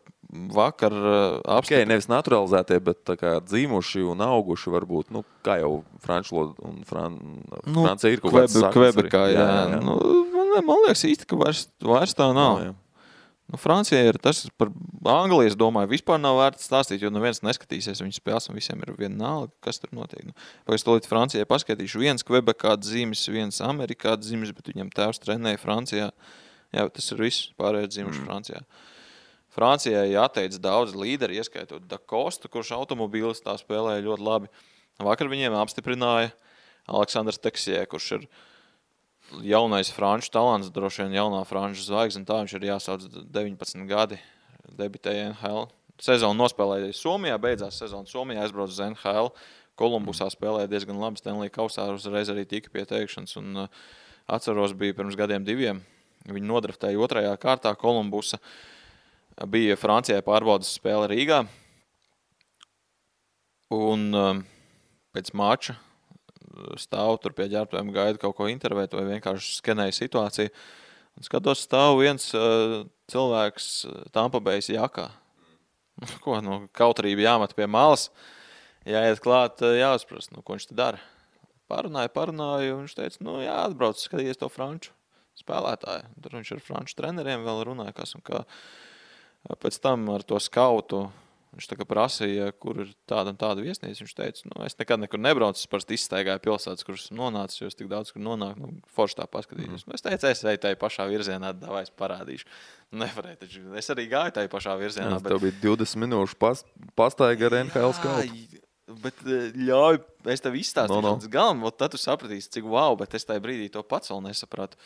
apstiprināja. Nevis naturalizētie, bet tā kā dzīmuši un auguši varbūt, kā jau franču un Francija ir kaut kāds saknes. Kvebekā, jā. Man liekas īsti, ka vairs tā nav. Francijai ir tas par Angliju, es domāju, vispār nav vērts stāstīt, jo neviens neskatīsies viņas spēles, un visiem ir vienalga, kas tur notiek. Pēc to līdz Francijai paskatīšu, viens Kvebekā dzimis, viens Amerikā dzimis, bet viņam tēvs trenēja Francijā. Jā, tas ir viss, pārējais dzimuši Francijā. Francijai atteica daudz līderi, ieskaitot Da Costa, kurš automobīlistā spēlēja ļoti labi. Vakar viņiem apstiprināja Aleksandrs Teksjē, kurš ir jaunais franču talants, droši vien jaunā franču zvaigzne, tā viņš ir jāsauc 19 gadi, debitēja NHL. Sezonu nospēlēja Somijā, beidzās sezonu Somijā, aizbrauc uz NHL. Kolumbusā spēlēja diezgan labi, Stanley kausā uzreiz arī tika pie teikšanas, un atceros bija pirms gadiem 2. Viņi nodraftēja 2. kārtā Kolumbusa. Bija Francijai pārbaudas spēle Rīgā, un pēc mača stāv tur pie ģērbtuviem, gaida kaut ko intervēt vai vienkārši skenēja situāciju. Un skatos, stāv viens cilvēks Tampa Bay's jakā. Ko, kautrība jāmet pie malas, jāiet klāt, jāuzprast, ko viņš te dara. Parunāju, un viņš teica, jāatbrauc, skatījies to franču spēlētāju. Tur viņš ar franču treneriem vēl runāja, kas un kā. Pēc tam ar to skautu viņš tā kā prasīja, kur ir tāda un tāda viesnīca. Viņš teica, es nekad nekur nebraucu, es parasti izstaigāju pilsētas, kuras esmu nonācis, jo es tik daudz, kur nonāku, forši tā paskatījos. Es teicu, es eju tai pašā virzienā, davai es parādīšu. Nevarēju, taču es arī gāju tai pašā virzienā. Tev bija 20 minūšu pastaiga ar NHL skautu. Bet ļauj, es tev izstāstīšu līdz galam, tad tu sapratīsi, cik wow, bet es tajā brīdī to pats vēl nesapratu.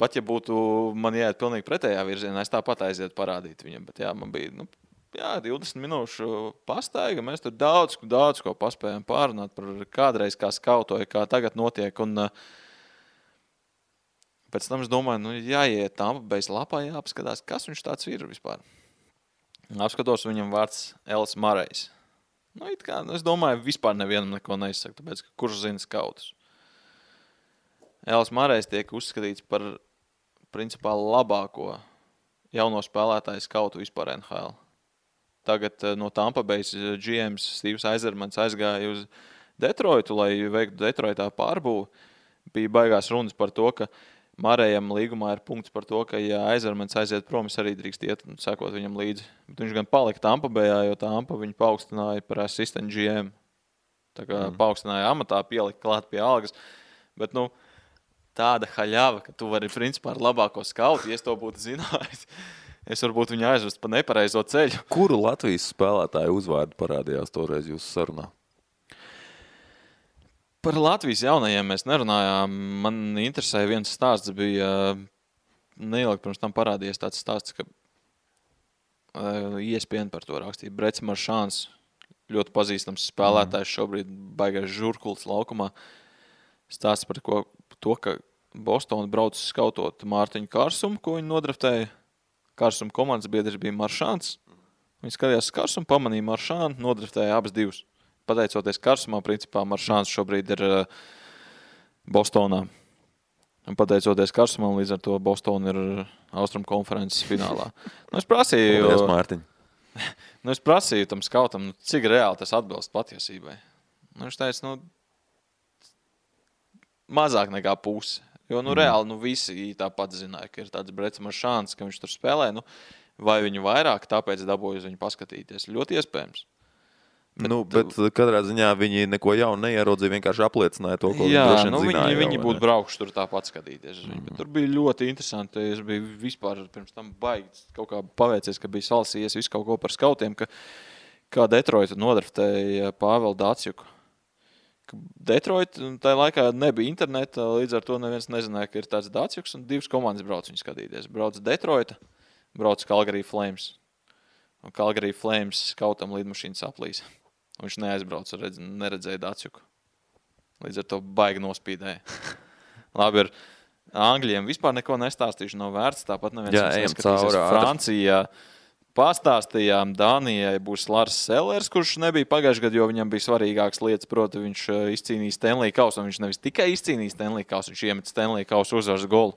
Pat ja būtu man jāiet pilnīgi pretējā virzienā, es tāpat aiziet parādīt viņam, bet man bija, 20 minūšu pastaiga, mēs tur daudz ko paspējām pārunāt par kādreiz kā skautoja, kā tagad notiek, un pēc tam es domāju, jāiet Tampa Bay's lapā, jāapskatās, kas viņš tāds ir vispār. Apskatos, viņam vārds Els Marejs. Es domāju, vispār nevienam neko neizsaka, tāpēc, ka kurš zina skautus. Els Marejs tiek uzskatīts par principā labāko jauno spēlētāju skautu vispār NHL. Tagad no Tampa Bay's GMs Steves Yzermans aizgāja uz Detroitu, lai veiktu Detroitā pārbūvu. Bija baigās runas par to, ka Marejam līgumā ir punkts par to, ka ja Yzermans aiziet prom, es arī drīkst iet un sekot viņam līdzi. Bet viņš gan palika Tampa Bayā, jo Tampa viņu paaugstināja par assistant GM. Tā kā paaugstināja amatā, pielika klāt pie algas. Bet, tāda haļava, ka tu vari principā ar labāko skautu, ja es to būtu zinājis. Es varbūt viņu aizvest pa nepareizo ceļu. Kuru Latvijas spēlētāju uzvārdu parādījās toreiz jūsu sarunā? Par Latvijas jaunajiem mēs nerunājām. Man interesēja viens stāsts, bija neilgi pirms tam parādījies tāds stāsts, ka ESPN par to rakstīja. Brets Maršāns, ļoti pazīstams spēlētājs, šobrīd baigais žurkulis laukumā. Stāsts par to, ka Bostona brauc skautot Mārtiņu Karsumu, ko viņi nodraftēja. Karsuma komandas biedrs bija Maršāns. Viņi skatījās Karsumu, pamanīja Maršānu, nodraftēja abas divas. Pateicoties Karsumā, principā Maršāns šobrīd ir Bostonā. Un pateicoties Karsumam, līdz ar to Bostona ir Austrum konferences finālā. Es prasīju... Paldies, Mārtiņ. Es prasīju tam skautam, cik reāli tas atbilst patiesībai. Viņš teica, mazāk nekā pusi. Jo, reāli, visi tāpat zināja, ka ir tāds Brets Maršāns, ka viņš tur spēlē, vai viņu vairāk, tāpēc dabūju uz viņu paskatīties. Ļoti iespējams. Bet katrā ziņā viņi neko jaunu neierodzīja, vienkārši apliecināja to, ko viņi droši vien zināja. Viņi būtu braukuši tur tāpat skatīties. Bet tur bija ļoti interesanti. Es biju vispār pirms tam baigi kaut kā paveicies, ka bija salasījies visu kaut ko par skautiem, kā Detroita nodraftēja Pāvelu Dācjuku. Detroit, tajā laikā nebija interneta, līdz ar to neviens nezināja, ka ir tāds Dācjuks, un divas komandas brauc viņu skatīties. Brauc Detroita, brauc Calgary Flames. Un Calgary Flames skautam lidmašīnas aplīsa. Viņš neaizbrauca, neredzēja Dācjuku. Līdz ar to baigi nospīdēja. Labi, ar Angļiem vispār neko nestāstīšu, nav vērts, tāpat neviens neskatīsies. Francijā pastāstījām, Dānijai būs Lars Sellers, kurš nebija pagājušajā gadā, jo viņam bija svarīgākas lietas, proti viņš izcīnīja Stanley kausu, un viņš nevis tikai izcīnīja Stanley kausu, viņš iemet Stanley kausu uzvaras golu.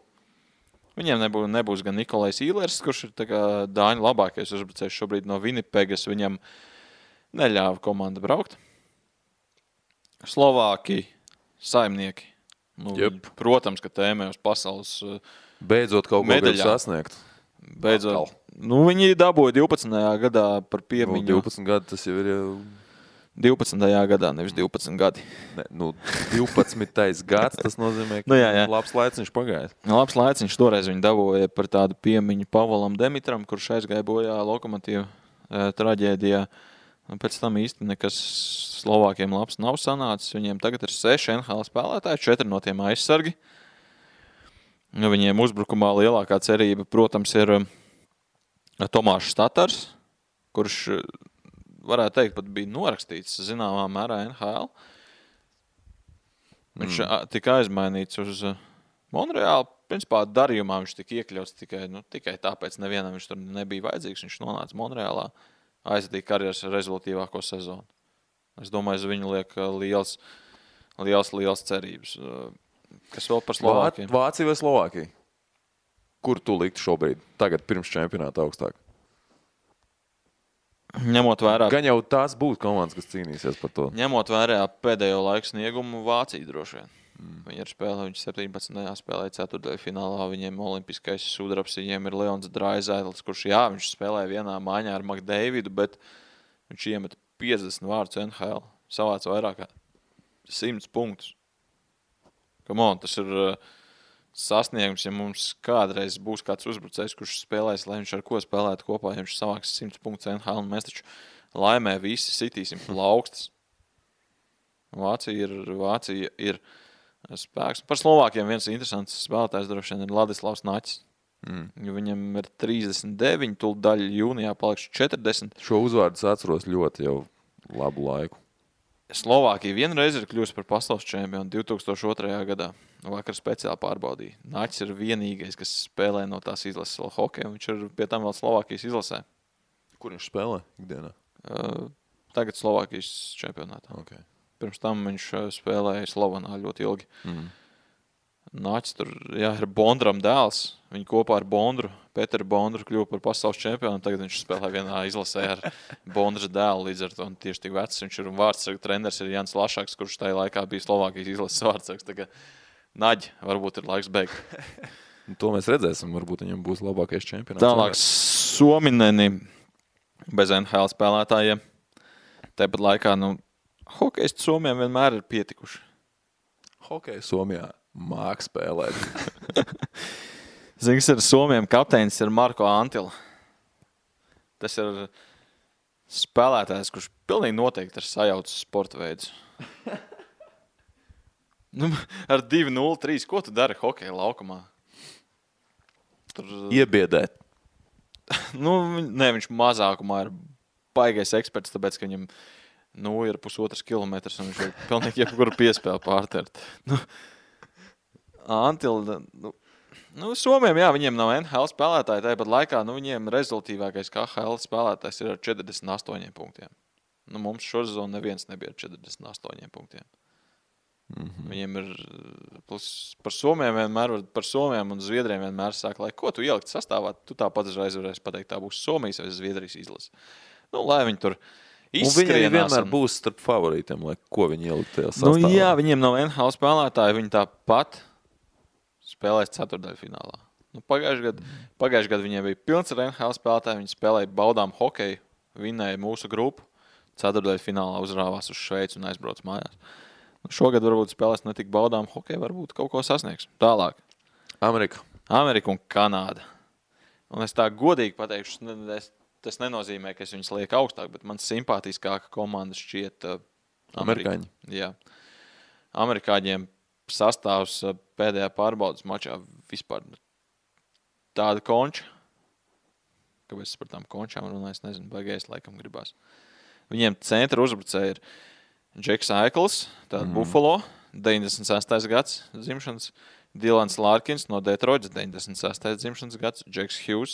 Viņiem nebūs gan Nikolais Īlers, kurš ir tā kā Dāņu labākais uzbrucējs šobrīd no Winnipegas, viņam neļāva komanda braukt. Slovāki, saimnieki. Protams, ka tēmē uz pasaules beidzot kaut ko grib sasniegt. Beidzot. Nu, viņi dabūja 12. gadā par piemiņu. 12 gadi tas jau ir... 12. gadā, nevis 12 gadi. Ne, 12. gads, tas nozīmē, ka labs laiciņš pagājis. Labs laiciņš toreiz viņi dabūja par tādu piemiņu Pavolam Demitram, kurš aizgāja bojā Lokomotīva traģēdijā. Un pēc tam īsti nekas Slovākiem labs nav sanācis. Viņiem tagad ir 6 NHL spēlētāji, 4 no tiem aizsargi. Nu, viņiem uzbrukumā lielākā cerība, protams, ir Tomāšs Tatars, kurš... varētu teikt, pat bija norakstīts zināmā mērā NHL. Viņš tika aizmainīts uz Monreālu. Principā darījumā viņš tika iekļauts tikai tāpēc nevienam viņš tur nebija vajadzīgs. Viņš nonāca Monreālā, aizdīja karjeras rezultīvāko sezonu. Es domāju, uz viņu liek liels cerības. Kas vēl par Slovākiem? Vācija vai Slovākija? Kur tu liktu šobrīd? Tagad pirms čempionāta augstāk? Ņemot vērā... Gan jau tās būtu komandas, kas cīnīsies par to. Ņemot vērā pēdējo laiku sniegumu Vācija droši vien. Viņi ir spēlē, viņi 17. spēlēja ceturtdaļu finālā, viņiem olimpiskais sudrabs, viņiem ir Leons Draisaitls, kurš viņš spēlēja vienā maiņā ar McDavidu, bet viņš iemet 50 vārdus NHL, savāca vairāk kā 100 punktus. Come on, tas ir sasniegums, ja mums kādreiz būs kāds uzbrucējs, kurš spēlēs, lai viņš ar ko spēlētu kopā, ja viņš savāks 100 punktus NHL, un mēs taču laimē visi sitīsim plaukstas. Vācija ir spēks. Par Slovākiem viens interesants spēlētājs droši vien ir Ladislavs Naķis. Viņam ir 39, tūlīt jūnijā paliks 40. Šo uzvārdu atceros ļoti jau labu laiku. Slovākija vienreiz ir kļuvusi par pasaules čempionu 2002. gadā. Vakar speciāli pārbaudīja. Naķis ir vienīgais, kas spēlē no tās izlases vēl hokeju. Viņš ir pie tam vēl Slovākijas izlasē. Kur viņš spēlē ikdienā? Tagad Slovākijas čempionātā. Okay. Pirms tam viņš spēlēja Slovanā ļoti ilgi. Naķis tur, ir Bondram dēls. Viņi kopā ar Bondru, Peteru Bondru kļuva par pasaules čempionu. Tagad viņš spēlē vienā izlasē ar Bondras dēlu. Līdz ar to tieši tik vecs. Viņš ir vārdsargu treneris ir Jans Lašaks, kurš tajā laikā bija Slovākijas izlases vārdsargs. Tagad Naģi, varbūt ir laiks beigt. To mēs redzēsim, varbūt viņam būs labākais čempionāts. Tālāk Suomineni bez NHL spēlētājiem. Tāpat laikā, hokejisti Somijam vienmēr ir pietikuši. Hokeja Somijā māk spēlēt. Zinies, ar Somijam kapteinis ir Marko Antila. Tas ir spēlētājs, kurš pilnīgi noteikti ir sajaucis sporta veidus. Ar 2-0-3, ko tu dari hokeja laukumā? Iebiedēt. Nē, viņš mazākumā ir baigais eksperts, tāpēc, ka viņam ir 1,5 kilometrs un viņš ir pilnīgi jebkuru piespēli pārtert. Antila, Somijam, viņiem nav NHL spēlētāji, tāpat laikā, viņiem rezultīvākais KHL spēlētājs ir ar 48 punktiem. Mums šosezonu neviens nebija ar 48 punktiem. Viņiem ir, par Somijiem un Zviedriem vienmēr saka, lai ko tu ielikt sastāvā, tu tāpat uzreiz varēsi pateikt, tā būs Somijas vai Zviedrijas izlase. Lai viņi tur izskrienās. Un viņi vienmēr būs starp favorītiem, lai ko viņi ielikt tajā sastāvā. Jā, viņiem nav NHL spēlētāji, viņi tāpat spēlēs ceturtdaļu finālā. Pagājušajā gadā viņiem bija pilns ar NHL spēlētāji, viņi spēlēja baudām hokeju, vinnēja mūsu grupu, ceturtdaļu finālā uzrāvās uz Šveici un aizbrauc mājās. Šogad varbūt spēlēs ne tik baudām hokeju, varbūt kaut ko sasniegs. Tālāk. Amerika un Kanāda. Un es tā godīgi pateikšu, tas nenozīmē, ka es viņus lieku augstāk, bet man simpātiskāka komanda šķiet Amerikāņi. Jā. Amerikāņiem sastāvs pēdējā pārbaudas mačā vispār tāda konča. Kāpēc es par tām končām runāju, es nezinu, baigais laikam gribās. Viņiem centra uzbrucēji ir Džeks Aikls, tāda Buffalo, 96. gads dzimšanas, Dilans Larkins no Detroitas, 96. dzimšanas gads, Džeks Hughes,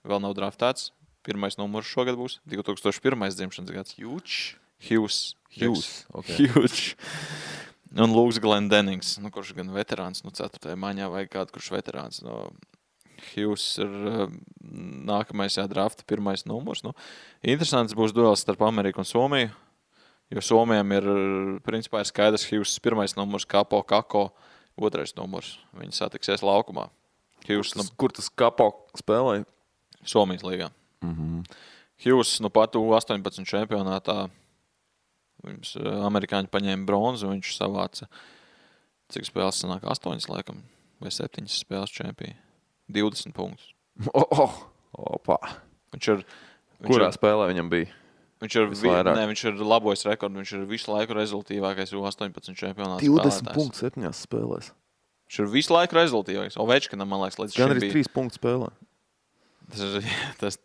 vēl nav draftēts, pirmais numurs šogad būs, 2001. dzimšanas gads. Hughes. Un Lūks Glendennings, kurš gan veterāns, 4. maiņā vai kādu, kurš veterāns. Hughes ir nākamais drafta pirmais numurs. Interesants būs duels starp Ameriku un Somiju. Jo Somijam ir, principā, ir skaidrs Hughes pirmais numurs, Kapo, Kako, otrais numurs. Viņi satiksies laukumā. Kur tas Kapo spēlēja? Somijas līgā. Hughes pat U18 čempionātā. Viņus amerikāņi paņēma bronzu, viņš savāca, cik spēles sanāk, 8 laikam, vai 7 spēles čempija. 20 punktus. Opa. Kurā spēlē viņam bija? Viņš ir labojis rekordu, viņš ir visu laiku rezultīvākais U18 čempionāts 20 punktus 7 spēlēs. Viņš ir visu laiku rezultīvākais. Ovečkinam, man liekas, līdz šim bija. Gan arī 3 punktus spēlē. Tas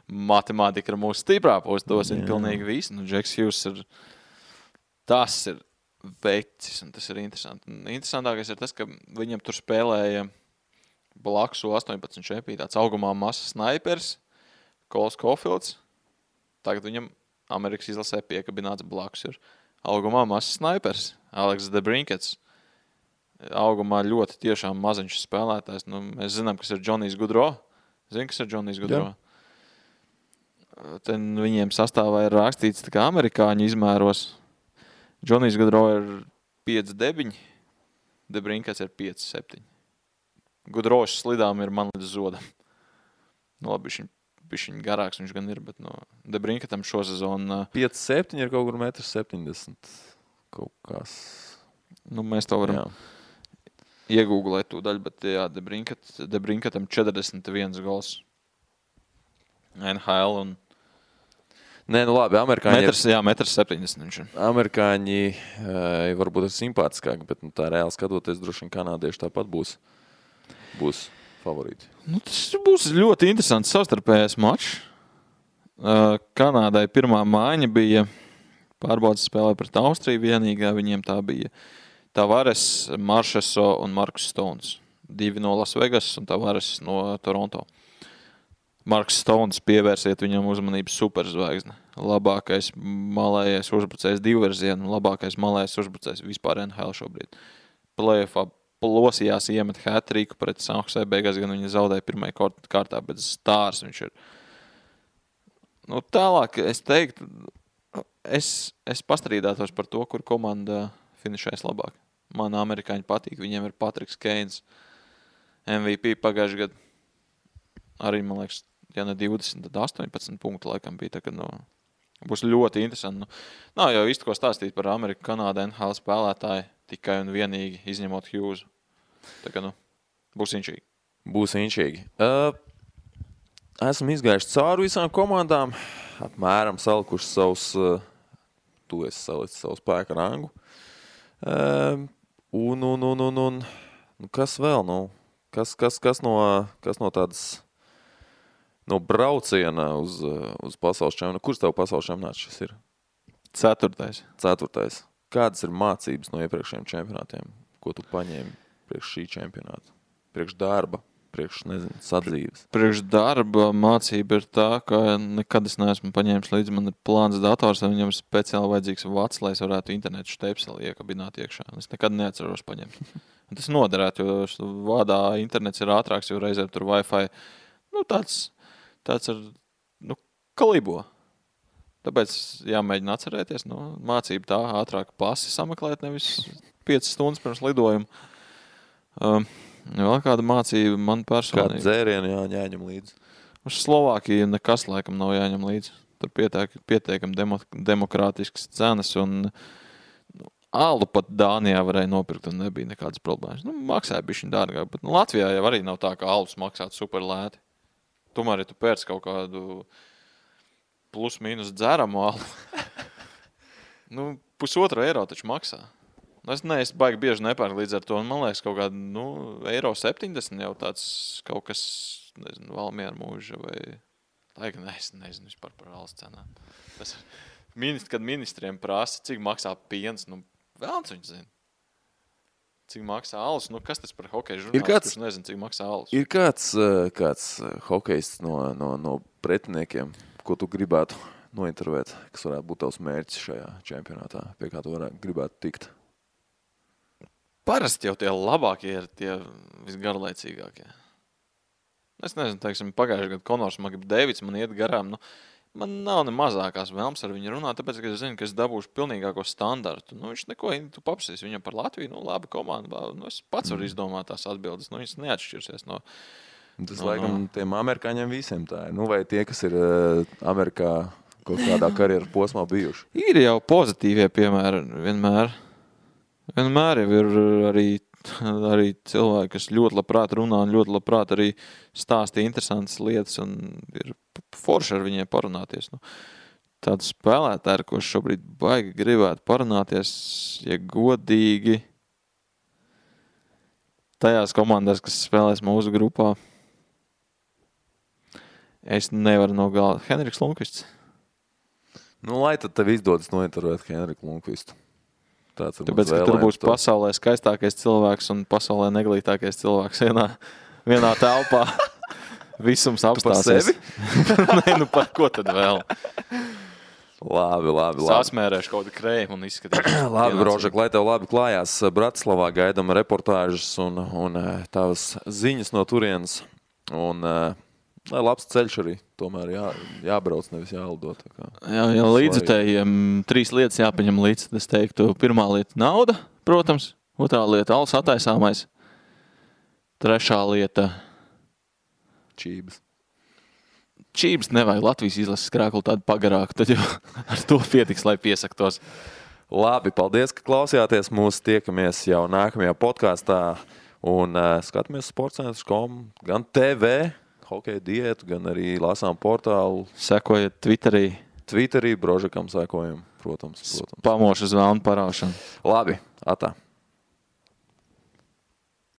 matemātika ir mūsu stiprā puse, tos ir pilnīgi visi. Džeks Hughes tas ir vecis, un tas ir interesanti. Interesantākais ir tas, ka viņam tur spēlēja blakus U18 čempija, tāds augumā masas snaipers, Kols Kofields. Tagad viņam Amerikas izlasē piekabināts blakus ir augumā masas snaipers, Aleks Debrinkets. Augumā ļoti tiešām maziņš spēlētājs. Mēs zinām, kas ir Džonijs Gudro. Zini, kas ir Džonijs Gudro? Ten viņiem sastāvā ir rakstīts tā kā amerikāņu izmēros. Džonijs Gudro ir 5'9", Debrinkets ir 5'7". Gudrošs slidām ir man līdz zodam. Labi, viņš garāks viņš gan ir, bet Debrinketam šo sezonu 5'7" ir kaut kur 1,70 m. Kaut kas. Mēs to varam iegūglēt tūdaļ, bet jā, Debrinketam 41 gols. NHL un Nē, labi, amerikāņi 1,70 m viņš ir. Amerikāņi varbūt ir simpātiskāki, bet tā reāli skatoties, droši vien kanādieši tāpat būs favorīti. Tas būs ļoti interesants savstarpējais mačs. Kanādai pirmā mājiņa bija pārbaudas spēlē pret Austriju vienīgā. Viņiem tā bija Tavares, Maršeso un Markus Stones. 2 no Las Vegas un Tavares no Toronto. Marks Stones pievērsiet viņam uzmanību superzvaigzne. Labākais malējais uzbrucējs divverzienu, labākais malējais uzbrucējs vispār NHL šobrīd. Playoffā plosījās iemet hat-triku pret San Jose, beigās gan viņa zaudēja pirmajā kārtā, bet stārs viņš ir. Tālāk es teiktu, es pastrīdētos par to, kur komanda finišēs labāk. Man amerikāņi patīk, viņiem ir Patriks Keins, MVP pagājušajā gadā. Arī, man liekas, ja ne 20, tad 18 punktu laikam bija. Tā, būs ļoti interesanti. Nav jau īsti ko stāstīt par Ameriku, Kanādu, NHL spēlētāju, tikai un vienīgi izņemot Hughes. Tā būs inčīgi. Būs inčīgi. Esam izgājuši cauri visām komandām, apmēram salikuši tu esi salicis savu spēku rangu. Un kas vēl? Kas no tādas no brauciena uz pasaules čempionātu? Kurš tev pasaules čempionāts šis ir? 4. Kādas ir mācības no iepriekšējiem čempionātiem, ko tu paņēmi priekš šī čempionāta? Priekš darba, priekš, sadzīves? Priekš darba mācība ir tā, ka nekad es neesmu paņēmis līdzi. Man ir plāns dators, un viņam ir speciāli vajadzīgs vats, lai es varētu internetu štepseli iekabināt iekšā. Es nekad neatceros paņemt. Un tas noderētu, jo vādā internets ir ātrāks, jo reizēm tur Wi-Fi tāds ar, kalibo. Tāpēc jāmēģina atcerēties, mācība tā ātrāk pasi sameklēt, nevis 5 stundas pirms lidojuma. Vēl kāda mācība man personīgi. Kāda dzēriena jāņem līdzi? Uz Slovākiju nekas laikam nav jāņem līdzi. Tur pietiekam demokrātiskas cenas un alu pat Dānijā varēja nopirkt un nebija nekādas problēmas. Maksāja bišķiņ dārgāk, bet Latvijā jau arī nav tā, ka alus maksātu super lēti. Tomēr, ja tu pērc kaut kādu plus-mínus dzeramu alu, €1,5 taču maksā. Es baigi bieži nepērku līdz ar to, un man liekas kaut kādu, €1,70 jau tāds kaut kas, Valmiera mūža vai... Laikam, es nezinu vispār par alus cenām. Kad ministriem prasa, cik maksā piens, vēlns viņš zina. Cik maksā alus, kas tas par hokeja žurnālistu, kurš nezinu, cik maksā alus. Ir kāds hokejists no pretiniekiem, ko tu gribētu nointervēt, kas varētu būt tavs mērķis šajā čempionātā, pie kā tu gribētu tikt? Parasti jau tie labākie ir tie visgarlaicīgākie. Es nezinu, teiksim, pagājušajā gadā Konors Makdēvids man iet garām. Man nav ne mazākās vēlmes ar viņu runāt, tāpēc, ka es zinu, ka es dabūšu pilnīgāko standartu. Viņš neko, tu paprasīs viņam par Latviju, labi komanda. Es pats varu izdomāt tās atbildes. Viņš neatšķirsies Tas, laikam, tiem amerikāņiem visiem tā ir. Nu, vai tie, kas ir Amerikā kaut kādā karjeras posmā bijuši? Ir jau pozitīvie piemēri vienmēr. Vienmēr jau ir arī cilvēki, kas ļoti labprāt runā un ļoti labprāt arī stāsta interesantas lietas un ir forši ar viņiem parunāties. Nu, tādu spēlētāju, ko šobrīd baigi gribētu parunāties, ja godīgi tajās komandās, kas spēlēs mūsu grupā. Es nevaru nogalāt. Henriks Lundqvists. Nu, lai tad tev izdodas nointervēt Henriku Lundqvistu. Tāpēc, ka tur būs pasaulē skaistākais cilvēks un pasaulē neglītākais cilvēks vienā telpā. Visums apstāsies. Tu par sevi? Nē, nu par ko tad vēl? Labi. Sasmērēšu kaut kādu krējumu un izskatīšu. Labi, Brožek, lai tev labi klājās. Bratislavā gaidam reportāžas un tavas ziņas no turienes. Un lai labs ceļš arī tomēr jābrauc, nevis jālido. Jā, līdzutējiem 3 lietas jāpaņem līdz. Es teiktu, pirmā lieta nauda, protams. Otrā lieta alus attaisāmais. Trešā lieta Čības nevajag Latvijas izlases krāklu tādu pagarāku, tad jau ar to pietiks, lai piesaktos. Labi, paldies, ka klausījāties mūs. Tiekamies jau nākamajā podkāstā un skatāmies sportscentrs.com, gan TV, hokeja diētu, gan arī lasām portālu. Sekojiet Twitterī, Brožekam sekojam, protams. Pamošu zvēlnu paraušanu. Labi, atā.